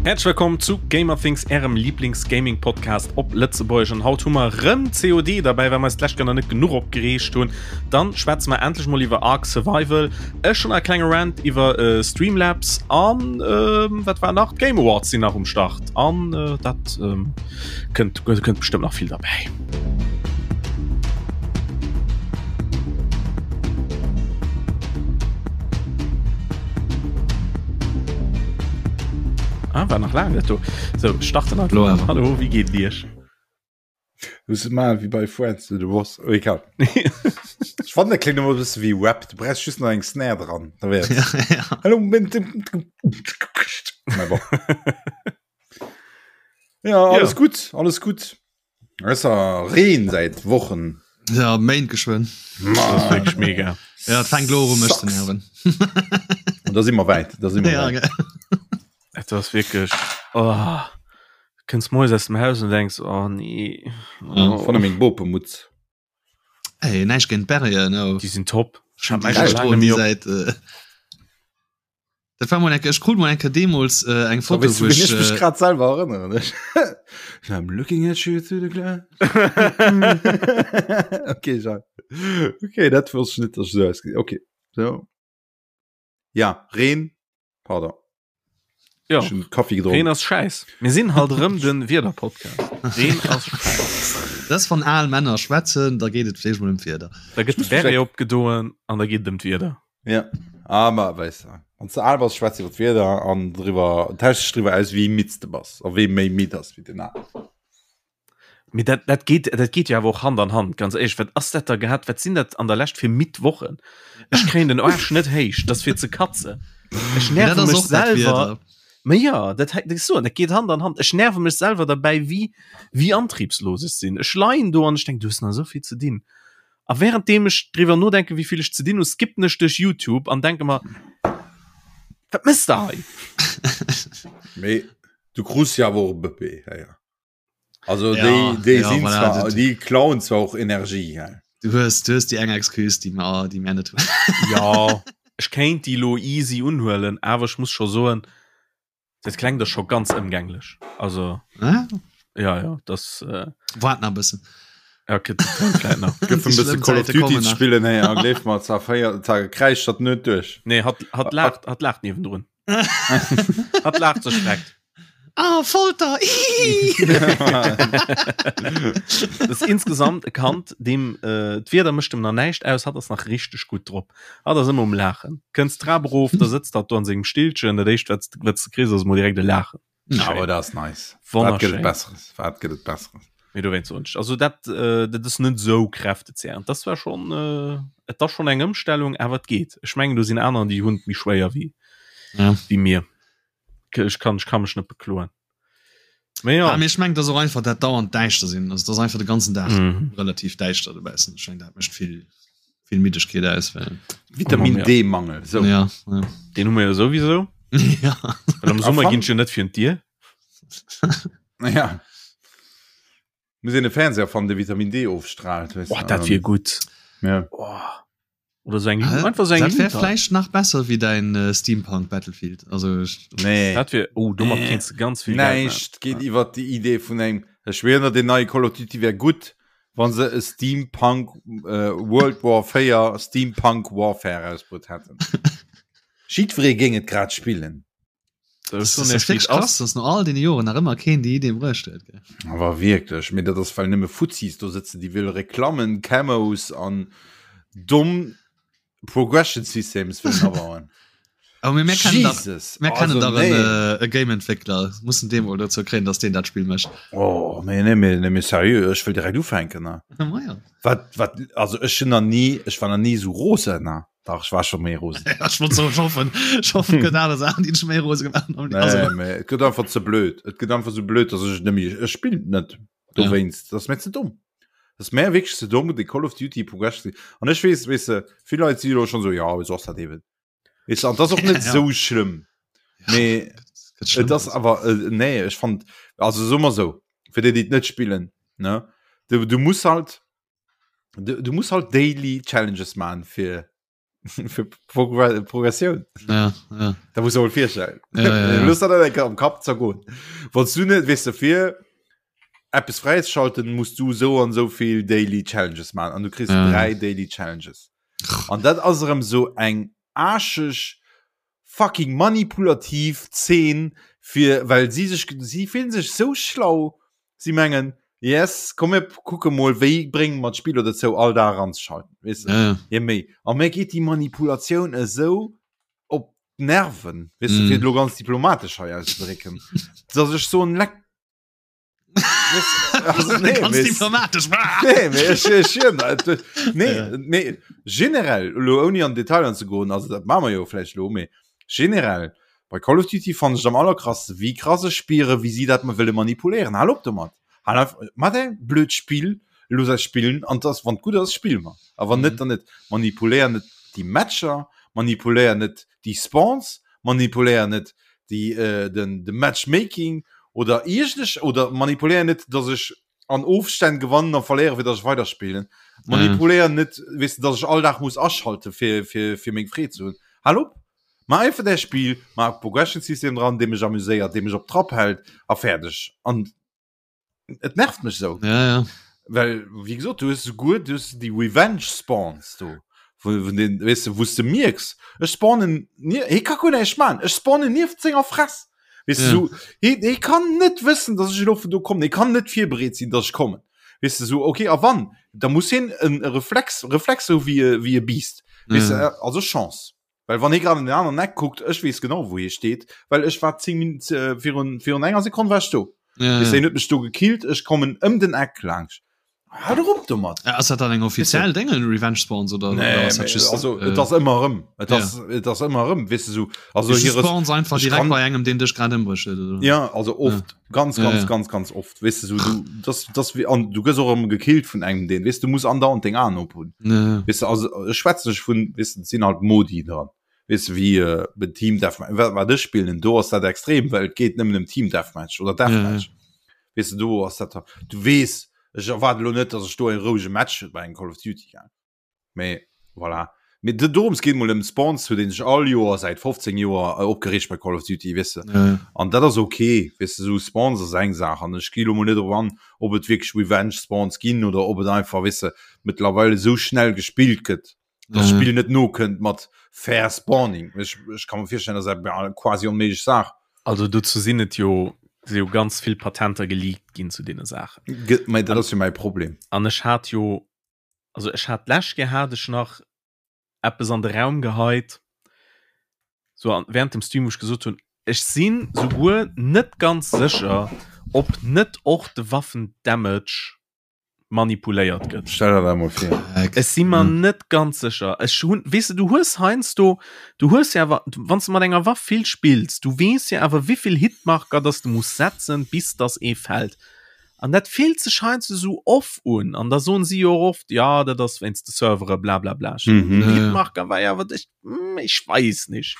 Häerzlech wëllkomm zu Gamerthings, ärem Lieblings-Gaming-Podcast op Lëtzebuergesch. An haut hu mer rëm COD derbäi, well mer eis d'lescht Kéier nach net genuch opgereegt hunn. Dann schwätze mer endlech mol iwwer Ark Survival. Ech hunn e klenge Rant iwwer äh, Streamlabs an ähm, wat war nach? D'Game Awards sinn nach um Start. An äh, dat ähm, kënnt, kënnt bestëmmt nach vill derbäi. Ah, war nach lang net do. So starten Hallo, Hallo wie geet Iech? Muss mal wie bei Friends du was oh, egal. Ich fand der klingt immer ein bisschen wie Rap. Du brauchst just noch eng Snare dran. Da wär's. Ja, ja. Hallo. Ja, alles Ja. gut, alles gut. Es ass Reen säit Wochen. Ja, Méint geschwënn. Das wirklich mega. Ja, et fänkt lo u mech ze nerven. Und da si mer wäit, da si mer Ja, wäit. gell. Et ass wirklich oh, kënns moies aus dem Haus und denkst oh nee. Oh. Von meng Bopemutz. Ey, näischt géint d'Berrier, no. Déi sinn top. Ech hunn Ech déi hab Stroen méi déi op. säit äh, Dat war mol eng Kéier, ech krut mol eng Kéier deemools äh, eng Foto, Wéi wou ech ech mech äh, grad selwer erënneren. I'm looking at you through the glass. okay, Jean. Okay, dat wosst ech net, dass ech esou ausgesinn. Okay, so. Ja, Reen, pardon. Ja. Ech hunn Kaffi Reen gedronk. ass schäiss. Mir sinn halt erëm den Wiederpodcast. Reen ass schäiss. Dat ass wann al Männer schwätzen, da geet et vläicht mol ëm d'Wieder. Da gëtt de Beret opgedoen an da geet et ëm d'Wieder. Ja. Ah, ma weess de, wann s de al bass, schwätz iwwer d'Wieder an driwwer, tausch dech driwwer aus, wéi midd s de bass a wee méi midd ass wéi den aneren. Mee dat, dat geet, dat geet jo awer och Hand an Hand, ganz éierlech. Wat ass dat da gehat? Wat sinn dat an der Lescht fir midd Wochen? Ech kréien den Aarsch net héich, dat ass fir ze katzen. Ech Mee dat nerve ass mech och dat selwer. Wieder. Ma ja, dat hei, dat so, dat geet Hand an Hand. Ech nerve mech selwer derbäi, wéi, wéi antriebslos ech sinn. Ech leien do an ech denk, du hues nach esou vill ze dinn. A währenddeem ech driwwer nodenken, wéi vill ech ze dinn hu, skippen ech duerch YouTube an denke mer, wat mëss de hei? Mee du krus jo awer och e Bëbee, héier. Also ja, déi, déi ja, sinn voilà, zwar, du, déi klauen zwar och Energie. Ja. Du hues, du hues déi eng Excuse, déi mer, déi mer net hunn. Ja, ech kéint déi lo easy unhuelen, awer ech muss scho soen, dat klengt da scho ganz ëmgänglech. Also ah? ja, ja, das äh, Wart nach e bëssen. Ja, okay, das kommt vielleicht nach. Gëff en bësse Call of Duty ze spillen, hey, a gleef mer, zwar 4 Tage kräischt dat net duerch. Nee, hat, hat laacht, hat laacht niewendrun. Hat laacht sech schreckt. Ah, Folter! Das ist insgesamt e Kand, dem äh, d'Wieder mécht em nach näischt aus, hat ass nach richteg gutt drop. Hat ass ëmmer um Laachen. Kënns d'Trap erof, da sëtzt hat do an sengem Stillchen, dat éischt wat wat s de kriss ass emol direkt e Laachen. Awer dat ass nice. Wat gëtt et Besseres? Wat gëtt et Besseres? Mee dowéinst soen ech, also dat, äh, dat ass net esou kräftezehrend. Das war schon, äh, et ass schon eng Ëmstellung, awer et geet. Ech mengen do sinn aner, déi hunn et méi schwéier wéi, Ja. wéi mir. Ech kann, ech kann mech net bekloen. Mee ja. Ah, mee ech mengen, dat ass och einfach dat dauernd däischter sinn. Also, dat ass einfach de ganzen Dag Mhm. relativ däischter dobaussen. Ech mengen, dat mécht vill, vill Middegkeet aus. Well, Vitamin D-Mangel, sou. ja, ja. Den hu mer jo souwisou. ja. Well am A Summer fan- ginn ech jo net virun d'Dier. Ja. Muss een e Fernseher fannen, dee Vitamin D ofstrahlt, weess Oh, de. dat wier gutt. Ja. Oh. Oder so eng, Hä? einfach so eng Dat wär Lunta. vläicht nach besser wéi däin äh, Steampunk Battlefield. Also ech, Nee. Dat wier, oh, domat Äh, kéints de ganz vill Geld maachen. Näischt geet iwwer déi Idee vun engem, ech schwéier, deen neie Call of Duty wär gutt, wann se e Steampunk äh, World War 4 Steampunk Warfare rausbruet hätten. Jiddweree géing et grad spillen. Das ist wirklich krass, dass no all den Joren nach ëmmer keen déi Idee bruecht huet. Gell? Awer wierklech, mee dat ass well nëmme Fuzzis do sëtzen, déi wëlle Reklammen, Camos an domm Progression Systems wëllen abauen. Aber mir, mir kennen dach, Jesus, mir kennen also dach nee. en, äh, e Game-Entwickler, mussen dee mol dozou kréien, dass deen dat Spill mécht. Oh, nee, nee, mee, nee, mee seriö, ech wëll direkt ufänken. Ne? Ma ja. Wat, wat, also ech hunn nach ni, ech war nach ni esou rosen, ne? Dach, ech war scho méi rosen. Ja, ech wollt soen, ech hoffen, ech hoffen, et gëtt aner Saachen, déi dech méi rose gemaach hunn. Nee, Also, mee et gëtt einfach ze blöd. Et gëtt einfach sou blöd, dass ech et net méi, ech spillen et net dowéinst. Dat ass mir ze domm. Dat ass mär wierklech ze domm, de Call of Duty Progression. An ech weess, weess de, vill Leit si elo schonn esou, jo, esou ass dat eben. Weess de, an dat ass och net Ja. sou schlëmm. Mee gëtt schlëmm. et ass awer, äh, nee, ech fand, also soe mer sou, fir déi, déi et net spillen, ne, du, du muss halt, du, du muss halt daily Challenges man fir. Fir Progressioun. Ja, ja. Da muss du virstellen. Ja, ja, ja. Lust dat am Kapp zergoen. Wann du net weess de fir Eppes fräizeschalten, muss du sou an sou vill Daily Challenges man an du kriss Ja. 3 Daily Challenges. An dat ass erëm sou eng aarscheg fucking manipulativ Zeen fir well si sech si fillen sech sou schlau, si mengen yes komm mir kucke mol wéi brénge mer d'Spiller dozou all Dag eranzeschalten, weess de. Ja, ja. Je méi a mir geet déi Manipulatioun esou op d'Nerven, weess de, Mm. fir et elo ganz diplomatesch hei auszedrécken, dass ech soen leck Also, nee, Ganz mee- diplomatisch. Nee, mee ech, ech, ech, nee, Ja. nee, generell, lo ouni an Detail anzegoen, also dat maache mer jo vläicht lo, mee generell, bei Call of Duty fannen ech am allerkrassten, wéi krass ech spiere, wéi si dat mer wëlle manipuléieren. Hal op domat! Hal einfach, mat däi blöd Spill, looss eis spillen, an dass, wann et gutt ass, spille mer, a wann net, dann net. Manipuléier net déi Matcher, manipuléier net déi Spawns, manipuléier net déi äh, den de Matchmaking oder iergendech oder manipuléier net, dass ech an Ofstänn gewannen a verléiere fir dass ech weiderspillen. Manipuléier net, weess de, dass ech all Dag muss aschalte fir fir fir meng Freed ze hunn. Hal op! Maach einfach däi Spill, maach e Progression System dran, dee mech amuséiert, dee mech op Trapp hält a fäerdeg. An et nervt mech sou. Ja, ja. Well wéi gesot, du hues souguer du hues déi Revenge Spawns do, wou vun den weess de, wou s de mierks, ech spawnen nie, hie ka guer näischt maachen, ech spawnen nieft senger Fress. Weess de, Ja. sou, hie, hie kann net wëssen, datt ech elo vun do kommen, hie kann net virbereet sinn, datt ech kommen. Weess de, sou, okay, a wann, da muss hien en Reflex, Reflex hu wéi e, wéi e Biest. Weess de, Ja. also Chance. Well wann hie grad an den aneren Eck kuckt, ech weess genau wou hie steet, well ech war 10 Min äh, virun, virun enger Sekonn war ech do. Ja, Weess ja. hien huet mech do gekillt, ech kommen ëm den Eck laanscht. Hal doch op domat! Äh, Ass dat dann eng offiziell Déngen, Revenge Spawns oder, Nee, oder ass dat mee, just, also äh, et ass ëmmer erëm. Et ja. ass, et ass ëmmer erëm, weess de sou. Also just hire Spawns einfach ech direkt kann- bei engem, deen dech grad ëmbrécht huet, oder? Ja, also oft, ganz, Ja, ganz, ja. ganz, ganz oft. Weess de sou, du, das, das wie, an du gëss och erëm gekillt vun engem, deen, weess du muss andauernd deng Aen op hunn. Ja, ja. Weess de, also ech schwätze nech vun, weess de, et sinn halt Modi dran. Weess de, wéi äh, be Team Deathmatch, wat, wat ech spillen, do ass dat extrem, well et geet nëmmen ëm Team Deathmatch oder Deathmatch. Weess de, do ass dat, du weess, ech erwaarde lo net, datt ech do e rouege Match hunn bei engem Call of Duty, gell. Mee voilà. Mee de- dorëms geet mol ëm Spawns, huet een sech all Joer säit 15 Joer äh, opgereegt bei Call of Duty, weess de. Ja, ja. An dat ass okay, weess de, sou Spawns ass eng Saach an ech gi lo mol net drop an, ob et wierklech Revenge Spawns ginn oder ob et einfach, weess de, mëttlerweil esou schnell gespillt gëtt, dass Ja. d'Spill net nokënnt mat fair Spawning. Ech, ech ka mer virstellen, dat ass eng quasi onméiglech Saach. Also dozou sinn et jo si jo ganz vill Patenter geleakt ginn zu deene Saachen. Ge mä dat ass jo mäi Problem. An ech hat jo also ech hat d'lescht Kéier hat ech nach eppes an de Raum geheit, so an, während dem Stream, wou ech gesot hunn, ech sinn souguer net ganz sécher, ob net och de Waffen-Damage manipuléiert gëtt. Stell der dat mol vir. Ech si mer net ganz sécher. Ech hunn, weess de, du hues heiansdo, du hues jo awer, wann s de mat enger Waff vill spills, du weess jo awer, wéivill Hitmarker dass de muss setzen, bis dass ee fält. An dat fillt sech heiansdo esou off un. An da soen si jo och oft, ja, dat ass wéinst de Servere, bla bla bla. Ech Mhm. den Hitmarker war jo awer, ech, hm, ech weess nicht.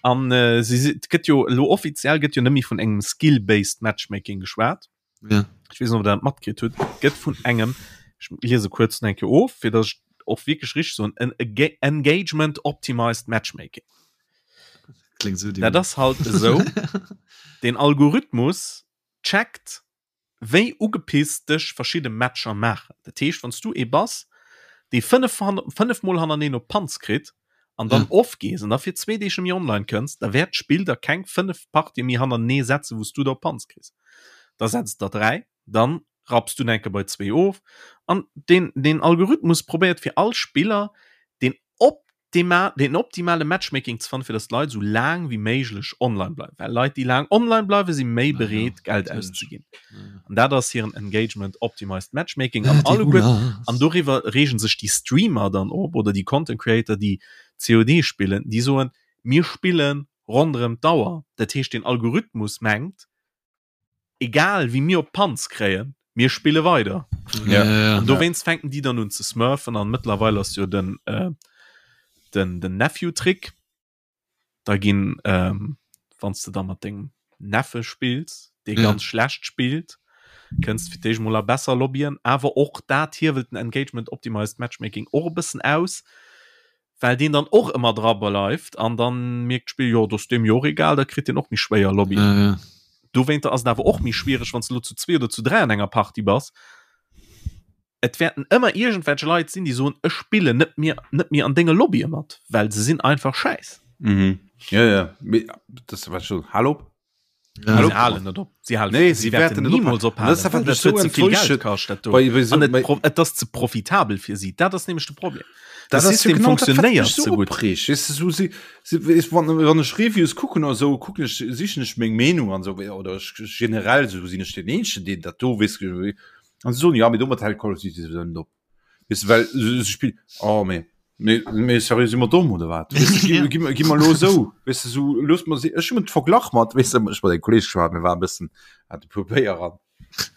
An äh, si, si, et gëtt jo elo offiziell gëtt jo net méi vun engem skill-based Matchmaking geschwat. Ja. Ech weess net, ob der dat matkritt hutt. Et gëtt vun engem, ech liese kuerz nach eng Kéier of, fir datt ech och wierklech richteg soen, en Engagement Optimized Matchmaking. Klingt so Dat ass halt esou, den Algorithmus checkt wéi ugepisst dech verschidde Matcher maachen. Dat heescht wann s du ee bass dee 5 5 mol hannerneeen op d'Panz kritt an dann Ja. off gees an da fir zwee Deeg net méi online kënns, da wäert d'Spill der keng 5 Partië méi hannertenee setzen wou s du der op d'Panz kriss. Da setzt der 3, dann rapps du enke bei zwee of an den den Algorithmus probéiert fir all Spiller den op den optimale Matchmaking ze fannen, fir datt d'Leit esou laang wéi méiglech online bleiwen. Well Leit, déi laang online bleiwen, si méi bereet, Geld auszeginn. An dat ass hiren Engagement Optimized Matchmaking. An alleguer, an doriwwer reegen sech déi Streamer dann op oder déi Content Creator, déi COD spillen, déi soen, mir spille ronderëm d'Auer. Dat heescht, den Algorithmus mengt, egal wéi mir op d'Panz kréien, mir spille weider. Ja. An dowéinst fänken déi dann un ze smurfen an mëttlerweil ass jo den, äh, den, den Nephew-Trick. Da ginn, ähm, wann s de da mat dengem Neffe spills, dee Ja. ganz schlecht spillt, kënns fir d'éischt mol a besser Lobbyen, awer och dat hiewelt den Engagement Optimized Matchmaking och e bëssen aus. Well deen dann och ëmmer dra bleift an dann mierkt d'Spill, jo, dat ass deem jo och egal, da kritt deen och méi schwéier Lobbyen. Ja, ja. Dowéinter ass et awer och méi schwiereg, wann s de elo zu zwee oder zu dräi an enger Partie bass. Et wäerten ëmmer iergendwelch Leit sinn, déi soen, ech spillen net méi, net méi an denge Lobbye mat, well se sinn einfach schäiss. Mhm. Ja, ja. Mee, das war schon. Hallo? Ja. Hallo? Sie halen net op. Sie halen, Nee, sie sie wäerten wäerten net niemals ophalen. ophalen. Das ist einfach Dat so huet ze vill Geld enttäuschend. kascht, dat do. Bei, bei so, An et, bei, pro, et ass ze profitabel fir si. Dat ass nämlech de Problem. Das De ass jo System genau dat, wat funktionéiert mech so ze gutt. opreegt. Weess de, so, si, si, weess, wann, wann ech Reviews kucken oder so, kucken ech, sichen ech meng Meenung an so, oder ech, generell so sinn ech den Eenzegen, deen dat do weess, an se soen, ja, mee domat hält Call of Duty sowieso net op. Weess de, well se, se spill, oh, mee, mee, mee seriö, si mer domm oder wat? Weess de, gi, gi, gi mer lo esou, weess de, so, looss mer si, ech hunn et verglach mat, weess de, ech mat engem Kolleg geschwat, mir waren e bëssen, hat e puer Béier an,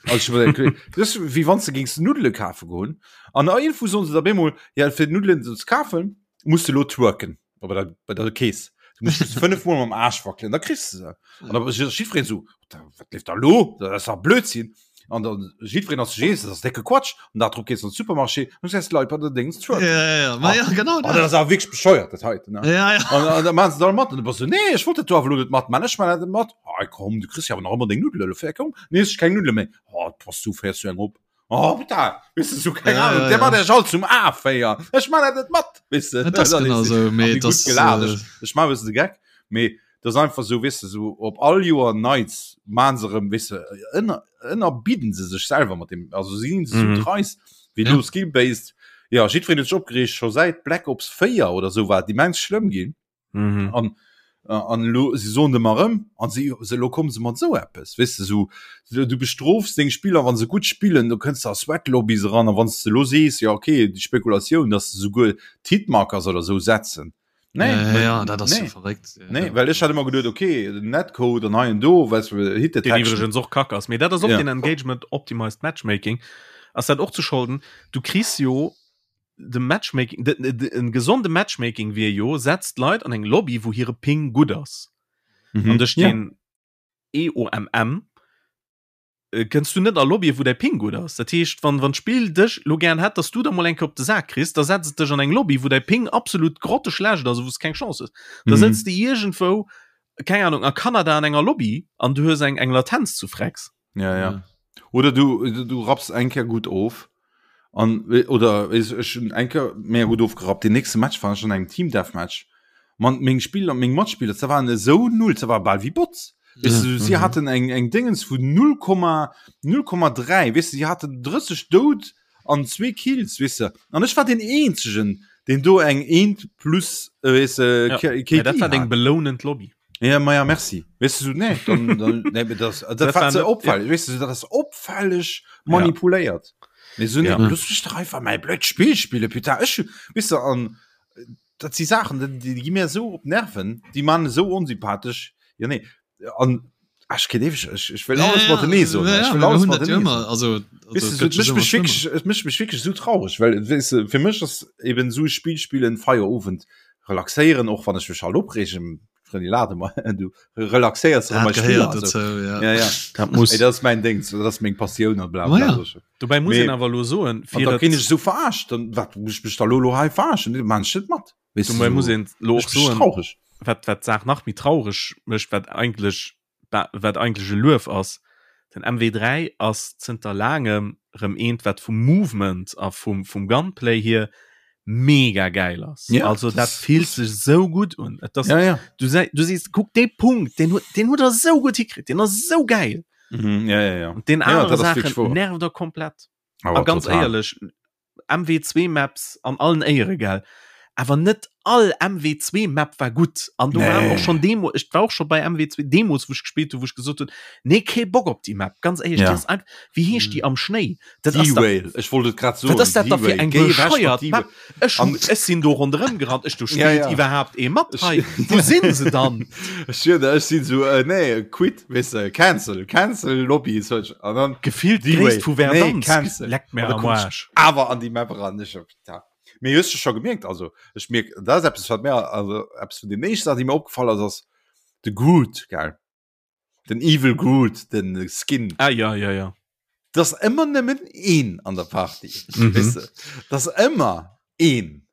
also ech mat engem Kolleg, das ist wéi wann s de géings Nuddele kafe goen an iergendwou soen se der bemol, ja, fir Nuddelen ze kafen, muss de lo twerken. Bei der, bei der Kees. Du musst just fënnef Mol mam Aarsch wackelen, da kriss de se. An da ass jiddwereen esou, wat leeft da lo? Dat ass dach Blödsinn. An dann jiddwereen ass sech eens, dat ass décke Quatsch. An dat drop gees an de Supermarché an du gesäis d'Leit bei der Déngs twerken. Ja, ja, ja. Ma ja, genau Oh, dat ass awer wierklech bescheuert, dat heiten, ne? Ja, ja. An, an da maachen se dat all mat. An du bass esou, nee, ech wollt dat do awer elo net matman. Ech man dat net mat. Ah, komm, du kriss jo awer nach ëmmer deng Nuddelen. Elo fir, komm, nee, ech keng Nuddele méi. Oh, bass du, féiers du eng op? Oh, putain, weißt du, so keine Ja, Ahnung, ja, der ja. macht euch all zum A-Féier. Ech mach dat net mat, weißt du. Dat ass genau so, mee Hab ich das, gut gelacht. äh, Ich, ich mach ein bisschen de Gag, mee das ist einfach so, weißt du, so op all Joer Nights machen se rem, weißt du, ënner, ënnerbidden se sech selwer mat dem, also si sinn so Mhm. dreist, wéi Ja. lo Skill-based. Ja, jiddwereen huet sech opgereegt, scho säit Black Ops 4 oder sou war et immens schlëmm ginn. Mhm. An, äh, an lo, sie soen dem erëm an sie se lo kommen se mat sou eppes weißt du so du, du bestrofs deng Spieler wann se gut spillen du kënns da Sweat Lobbies ran an wann du lo sees ja okay die Spekulatioun dass du souguer d'Hitmarkers oder sou setzen nee, Ja, ja, ja, dat ass nee. jo verréckt. Ja, Nee, ja. well ech hat immer geduet okay den Netcode an hei en do weißt du Hit Den Detection iwwregens och kack ass. Mee dat ass och Ja. den Engagement Optimized Matchmaking. Ass dat och ze scholden? Du kriss jo de Matchmaking, de, de, de, en gesonde Matchmaking wier jo, setzt Leit an eng Lobby, wou hire Ping gutt ass. Mhm. An duerch Ja. den EOMM äh, kënns du net a Lobbye, wou däi Ping gutt ass. Dat heescht, wann, wann d'Spill dech lo gären hätt, dass du da mol eng Kéier op de Sak kriss, da setzt et dech an eng Lobby, wou däi Ping absolut grotteschlecht ass a wou s keng Chance hues. Da Mhm. sëtz de iergendwou, keng Ahnung, a Kanada an enger Lobby an du hues eng, eng Latenz zu Frecks. Ja, ja. Oder du, du, du rapps eng Kéier gutt of. An, oder weess, ech hunn eng Kéier mega gutt ofgerappt. Den nächste Match war ech an engem Team Deathmatch. Man, meng Spiller, meng Matspiller, se waren esou null, se war bal wéi Bots. Weess du, si Mhm. haten eng, eng Dingens vun 0,0,3, weess du, si haten 30 Doud an zwee Kills, weess du. An ech war den eenzegen, deen do eng eent plus, äh, weess du, Ja. K- Ja, KD dat war deng hat. belounend Lobby. Ja, ma ja, merci. Weißt du, so, nee, dann, dann, nee, das, das, Das war war ze net- opfällig. Weißt du, so, das ist opfällig manipuléiert. Nee, so, nee, Ja. lass mich doch einfach mein blöd Spiel spielen, putain. Ich, weißt du, an, das sind Sachen, die, die, die gehen mir so op Nerven, die machen so unsympathisch. Ja, nee, an, ach, ich kenn ewig, ich, ich will alles ja, mat nee so. ja, Ich ja, will wir alles hunn mat dat jo nee ëmmer, also, also, Weißt du, et so, gëtt mich just mich ëmmer wirklich, es mécht mech wirklich so traurig, well weißt du, fir mech ass eben so Spiel spielen Feierowend relaxéieren, och wann ech mech halt opreegen, Frëndi lade mer du relaxéiers Dat mat gehéiert Spiller, also. dozou, ja. Ja, ja. Dat muss. Ey, dat ass mein Ding, dat ass meng Passioun an bla Ma bla. ja. so. Dobäi muss Mee- een awer lo soen, An fir da et- ginn ech so verarscht, dann wat muss ich mech da lo lo hei verarschen? Nee, man net mat. Weißt du, dobäi so, muss een lo ech och bin soen, traurig. wat wat d'Saach nach méi traureg mécht, wat eigentlech wat eigentlech e Luef ass, den MW3 ass zënter laangem rëm eent, wat vum Movement a vum vum Gunplay hier mega gäil ass. Ja, also dat das- fillt sech sou gutt un. Et ass, Ja, ja. du, sei, du sees, kuck dee Punkt, deen huet deen huet er sou gutt hikritt, deen ass sou gäil. Mhm, ja, ja, ja. Und den Ja, anere dat ass wirklich Saachen wahr. nervt er komplett. Aber A ganz total. éierlech, MW2 Maps an allen Éiere gell, awer net all MW2 Map war gutt an do Nee. waren och schon Demo ech war och schon bei MW2 Demos wou ech gespillt hu wou ech gesot hunn nee kee Bock op déi Map ganz éierlech Ja. déi ass einfach wéi heescht déi am Schnéi dat ass da D-Whale, ech wollt et grad soen. wat ass dat da fir D-Whale. eng Géi ewech mat bescheuert D-Whale. Map ech An- ech sinn do ronderëm gerannt ech do Ja, spillt ja. iwwerhaapt ee mat Ech- hei wou sinn se dann Ech schwör der, ech sinn so, äh, nee, quit, weißt du, cancel, cancel Lobby, so, an dann gefillt D-Whale. d'Gréisst vu Nee, Verdansk cancel. leckt mir An da am komm ich Arsch awer an déi Map ran, ech hab, ja. Mee hues du scho gemierkt, also ech mierk, dat ass eppes wat mir, also eppes vun den éischten Saachen, déi mir opgefall ass, ass de Groot, gell? Den Evil Groot, den Skin. Ah ja, ja, ja. Dat ass ëmmer nëmmen een an der Party, Mhm. weess de? Dat ass ëmmer een.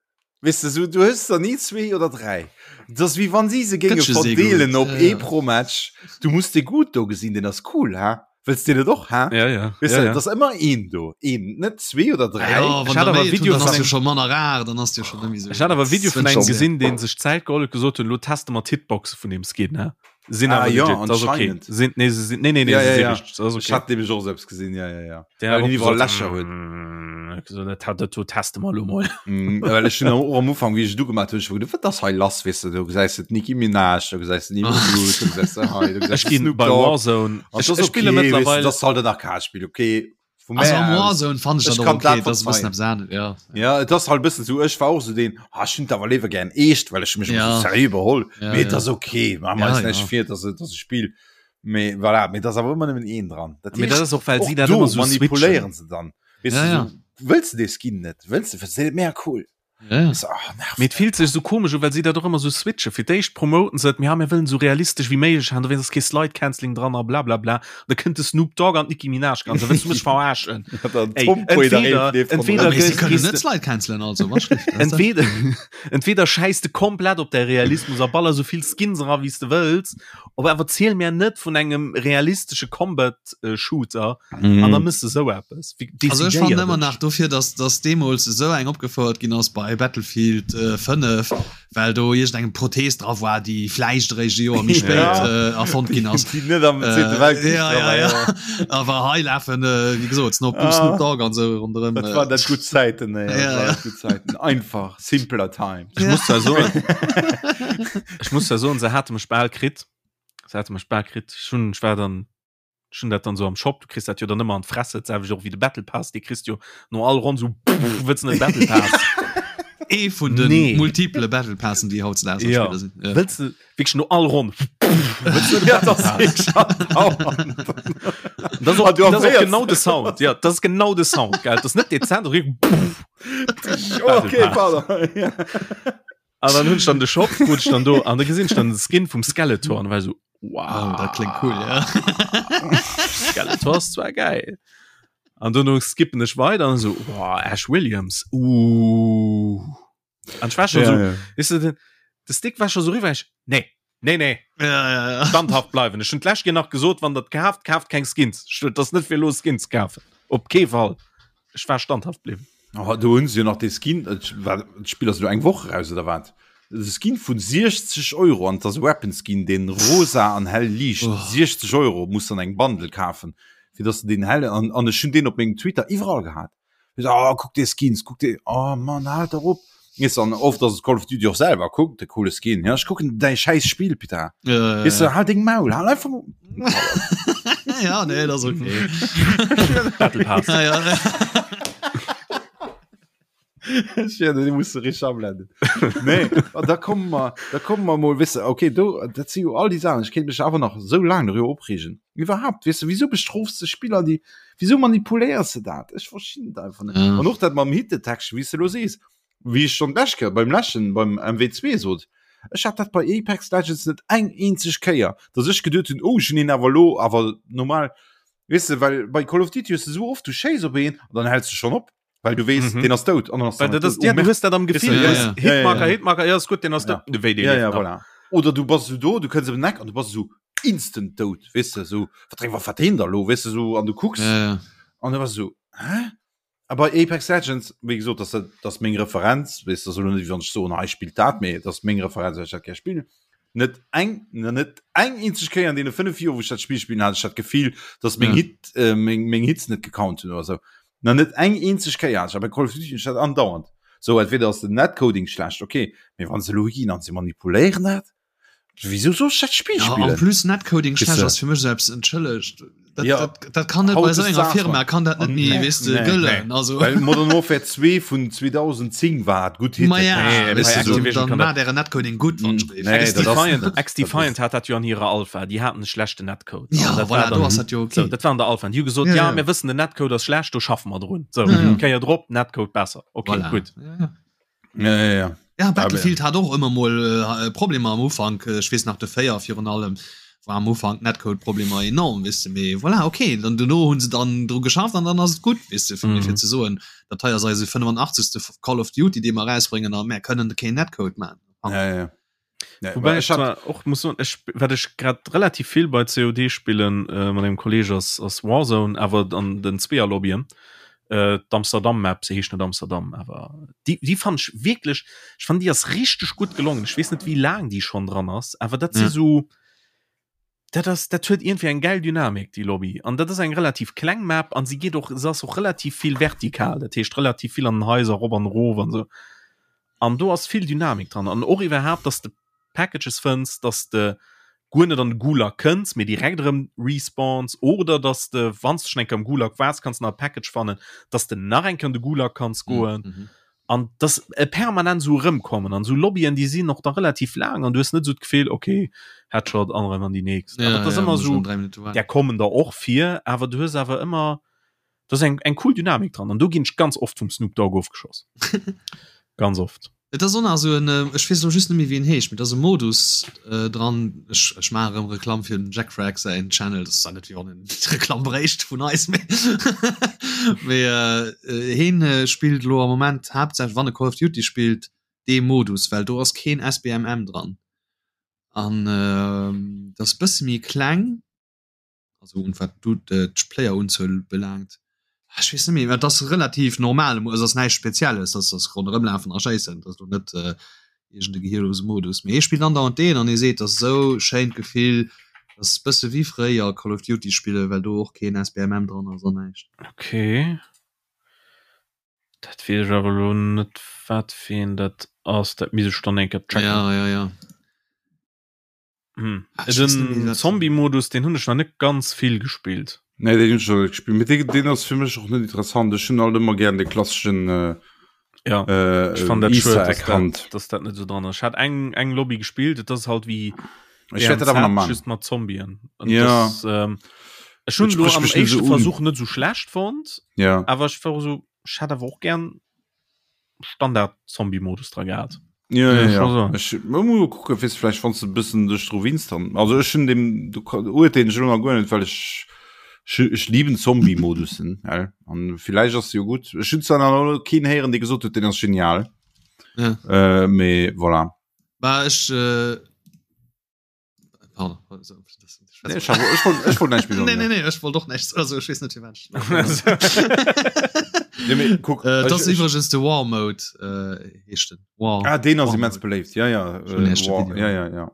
Weess de, sou, du hues der ni zwee oder dräi. Et ass wéi wann si se géinge verdeelen op ee pro Match. Du muss dee gutt do gesinn, deen ass cool, ha? Wëlls deen net och, ha? Ja, ja. Weess de, et ass ëmmer een do, een, net zwee oder dräi. Ja, wann der méi hunn, dann ass jo scho manner rar, dann ass jo scho net méi sou. Ech hat awer e Video vun engem gesinn, dee sech d'Zäit geholl huet, gesot hunn, elo teste mer d'Hitboxe vun deem Skin, ha? Sinn ah, awer ja, legit, das okay. anscheinend. Sind, nee, sie sind, nee, nee, nee, Ja, sie ja, sind ja. richtig, das ist Ich okay. hat nämlich och selbst gesinn, ja, ja, ja. Der Weil hat den och iwwerall gesagt, Lächer huet. mm, so, dat hat dat do teste mer lo mol. Mm, well ech hunn och am Ufank, wéi ech et ugemaach hunn, ech hu geduecht, wat ass hei lass, weess de, do gesäis de d'Nicki Minaj, do gesäis de Nicki Minaj, do gesäis de hei, do gesäis Ech de ginn Snoop bei Dogg. Warzone. An Ech, das ech okay, spille weess de, mittlerweile das halt en Arcade-Spiel, okay. Vu Also mär am aus. Warzone fand ich Ech dat och kann okay, dat das ist e bëssen verzeihen. eppes anescht, ja. Ja, et ass halt e bëssen sou, ech war och sou deen, ah, ech hunn et awer léiwer gären eescht, well ech mech ëmmer Ja. sou seriö beholl. Ja, Mee et ja. ass okay, maache mer Ja, eis näischt ja. vir, et ass, et ass e Spill. Mee voilà, mee et ass awer ëmmer nëmmen een dran. Dat Mee dat heescht, ass och, well och si dat do ëmmer sou switchen. manipuléieren se dann. Weess Ja, de, ja. sou, wëlls de dee Skin net? Wëlls de, fënns de deen net mega cool? Ja. Weess de, ah, nervt Mee et fillt sech sou komesch u, well si dat och ëmmer sou switchen. Fir d'éischt promoten se et, mir, ja, mir wëllen sou realistesch wéi méiglech han, dowéinst ass kee Slide Cancelling dran a blablabla. Da kënnt de Snoop Dogg an d'Nicki Minaj an se wëlls du mech verarschen. Dann Ey, Tom Quaid entweder- erreecht leeft entweder ronderëm. Mee si gehst- kënnen gehst net de- Slide cancelen, also, wat schlecht, das ist Entweder, entweder scheiß de komplett op däi Realismus a baller sou vill Skins era wéi s de wëlls, op awer ziel mir net vun engem realistesche Combat äh, Shooter Mhm. an da mëss de sou eppes. Wéi Also ech fannen decidéier ëmmer dech. nach dofir, dass, dass deemools esou eng opgefouert ginn ass bei Battlefield äh, 5, well do iergendengem Prothees dra war, déi vläicht eréischt e Joer méi spéit Ja. äh, erfonnt ginn ass. Déi net am Zweete Äh, Weltkrich ja, dra ja, war, ja. ja. Awer hei lafen, äh, wéi gesot, Snoop, Ah. Snoop Dogg an sou ronderëm. Dat Äh, waren dat gutt Zäiten, ey. Dat Ja, waren ja. gutt Zäiten. Einfach, simpler Times. Ech muss zwar soen, ech muss zwar soen, se hate mech bal kritt. Se hate mech bal kritt. Ech hunn, ech war dann Ech hunn dat dann sou am Shop, du kriss dat jo dann ëmmer an d'Fresse, d'selwecht och wéi de Battle Pass, dee kriss du jo no all Ronn sou wëlls de net Battle Pass? Ee vun de Nee. multiple Battle Passen, déi hautdesdaags am Ja. Spiller sinn. Ja. Wëlls de wierklech no all Ronn wëlls de net Ja, Battle dat ass Pass? wierklech andauernd. Dat ass och, Ah, du dat ass och erféiers. genau de Sound, ja, dat ass genau de Sound, gell, dat ass net dezent, dat ass wierklech Okay, Battle Pass. pardon. Ja. An dann hunn ech dann de Shop, krut ech dann do, an da gesinn ech dann de Skin vum Skeletor an war so, wow. Oh, dat klingt cool, ja. Skeletor ass zwar geil. An dono skippen ech weider an so, wow, Ash Williams, uh. An ech war schon Ja, so, ja. weißt du, den, de Stick war schon so riwwer, ech, nee, nee, nee, Ja, ja, ja. standhaft bleiwen. Ech hunn d'lescht Keer nach gesot, wann der kaaft, kaaft keng Skins. Ech, dat ass net fir elo Skins kafen. Op kee Fall. Ech war standhaft bliwwen. Oh, do hunn se jo nach dee Skin, et war, d'Spill ass elo eng Woch eraus oder wat? De Skin vun 60 Euro an et ass e Weapon Skin, deen rosa an hell liicht. Oh. 60 Euro muss an eng Bundle kafen, fir dass de deen hell an an ech hunn deen op mengem Twitter iwwerall gehat. Ech so, oh, kuck dee Skins, kuck dee, oh Mann, haalt der op. Weess an oft ass et Call of Duty och selwer, kuck de coole Skin, ja ech kucken däi schäiss Spill, Peter. Ja, ja, Weess de, ja. hal deng Maul, hal einfach. ja, nee, dat ass okay. Battle Pass. Ja, ja. Ja, den muss du richtig ablenden. Nee, an da kommen wir, da kommen wir mal, weißt du, okay, do, dat si jo all déi Sachen, ich kéint mech awer nach so lang darüber opregen. Iwwerhaupt, weißt du, wieso bestrofst du Spieler, déi, wieso manipuléiers du dat? Ech verstinn et einfach net. Ja. An och dat mam Hit Detection, wéi s du lo sees, wéi ech schon d'lescht Kéier beim leschten, beim MW2 sot, ech hat dat bei Apex Legends net eng eenzeg Kéier, dass ech geduet hunn, oh, ech hunn een awer lo, awer normal, weess de, well bei Call of Duty hues du sou oft, du schéiss op een an dann häls du schonn op, well du weess, Mhm. deen ass dout an dann ass Well dann dat ass, dout. ja, Oh, du Merde. hues dat am Gefill, Ja, du hues ja. Hitmarker, Ja, ja. Hitmarker, ja, ist gut, den ass Ja. dout. Wéi, dee Ja, leeft ja, nach. voilà. Oder du bass sou do, du kënns op den Eck an du bass sou instant dout, weess de, sou, wat dréng, wat wat deen da lo, weess de, sou, an du kucks Ja, ja. an du bass sou, hä? A bei Apex Legends, wéi gesot, dat ass, dat ass meng Referenz, weess de, ass elo net, wéi wann ech soen, hei spillt dat, mee dat ass meng Referenz, well ech dat gär spillen. Net eng, net eng eenzeg Kéier an deene 5 Joer, wou ech dat Spill spillen, hat ech dat Gefill, dass meng Ja. Hit, äh, meng, meng Hits net gecount hunn oder sou. Na net eng eenzeg Kéier hat ech. A bei Call of Duty hunn ech dat andauernd. Sou, entweder ass den Netcoding schlecht, okay, mee wann se elo higinn an se manipuléieren dat, Wieso soll ich dat Spiel Ja, spillen? en plus Netcoding Weißt schlecht du? ass fir mech selbst entschëllegt. Dat, Ja. dat, dat kann net Haut bei so ist enger das Firma mal. kann dat net méi Nee, weess de nee, gëllen. nee. Also Well Modern Warfare 2 vun 2010 war et gutt Hit. Ma ja, Nee, weißt bei du, Activision dann kann mat dere Netcoding gutt wann Mm, ich nee, dat ass X-Defiant, net. X-Defiant hat dat jo an hirer Alpha, déi haten e schlechten Netcode. Ja, An dat voilà, war do dann, ass dat jo so, okay. dat war an der Alpha. An déi hu gesot, Ja, ja, ja. mir wëssen, den Netcode ass schlecht, do schaffe mer drun. So, Ja, ja. Kéier drop, Netcode besser. Okay, Voilà. gutt. Ja, ja. Ja, ja, ja. Ja, Battlefield hat och ëmmer mol äh, Problemer am Ufank. Ech weess nach de 4 virun allem, War am Ufank Netcode-Problemer enorm, weess de, mee voilà, okay, dann dono hunn se dann dru geschafft an dann ass et gutt, weess de, fir mm. fir ze soen, dat hei ass eise 85. Call of Duty, dee mer erausbréngen a mär kënnen keen Netcode man. Ja, ja. Ja, Wobei ich zwar och muss soen, ech, wat ech grad relativ vill bei COD spillen äh, mat engem Kolleg ass, ass Warzone, awer an den Zweeër-Lobbyen. Äh, d'Amsterdam Map, se heescht net Amsterdam, awer déi, déi fand ech wierklech, ech fand déi ass richteg gutt gelongen. Ech weess net wéi laang déi schonn dran ass, awer dat si ja. so dat ass dat huet irgendwie eng geil Dynamik déi Lobby an dat ass eng relativ kleng Map an si geet och se ass och relativ vill vertikal, dat heescht relativ vill an den Haiser rop an erof an sou. An do ass vill Dynamik dran an och iwwerhaapt, dass de Packages fënns, dass de guer net an de Gulag kënns, mee direkt erëm respawns oder dass de wann s de schon eng Kéier am Gulag waars, kanns de nach e Package fannen, dass de nach eng Kéier an de Gulag kanns goen. Mm -hmm. An dass e permanent esou erëmkommen an esou Lobbyen, déi sinn och da relativ laang an du hues net esou d'Gefill, okay, Headshot an erëm an déi nächst. Ja, dat ass ja, ëmmer esou, där kommen der och vir, awer du hues awer ëmmer Do ass eng, eng cool Dynamik dran an do ginn ech ganz oft vum Snoop Dogg ofgeschoss. ganz oft. Et ass och nach esou en, ech weess elo just net méi wéi en heescht, mee et ass e Modus dran, ech ech maache erëm Reklamm fir dem Jack Frag säin Channel, dat ass zwar net wéi wann en Reklamm bréicht vun eis, mee mee heen spillt elo am Moment haaptsächlech, wann e Call of Duty spillt, dee Modus, well do ass keen SBMM dran an dat ass e bësse méi kleng. also un wat du d'Player-Unzuel belaangt. Ech weess net méi, dat ass relativ normal, et ass näischt Spezielles, dat ass ronderëm lafen a schéissen, dat ass lo net äh, iergend e gehirlose Modus. Mee hie spillt andauernd deen an hie seet, dat ass esou schéint Gefill, dat ass bësse wéi fréier Call of Duty spillen, well do och keen SBMM dran ass an näischt. Okay. Dat weess ech awer elo net, wat fir een dat ass. Dat misst ech dann eng Kéier checken. Ja, ja, ja. Hm. Ah, den Zombie-Modus den hunn ech nach net ganz vill gespillt. Nee, den hunn ech net gespillt. Mit den, den ass fir mech och net interessant. Ech hunn alt ëmmer gern de klassischen äh, ja. äh, ich fand dat schued, dass dat, dass dat net so dran ass. Ich hat eng eng Lobby gespielt, dat ass halt wie ich werd dat awer nach machen. just mat Zombien. Und ja. Das, ähm, ech hunn lo am éischte so Versuch net so schlecht fand. Ja. Awer ich war so, ich hat awer och gern Standard Zombie Modus dra gehat. Ja, ja, ja. Ech muss kucke fis vielleicht wann du bëssen duerch dru winst dann. Also ech hun dem du urteen ech ëmmer guer net, well ech ech lieben Zombie Modussen an vielleicht ass jo gut. Ech hun zwar nach keen héieren, dee gesot huet, den ass genial. Ja. Äh, mee voilà. Bah, ech äh wollt doch näischt also ech weess net firwat Äh, dat ass iwwregens de War Mode äh, heescht den. War. Ah, den ass immens beléift. Ja, ja. Äh, War, ja, ja, ja.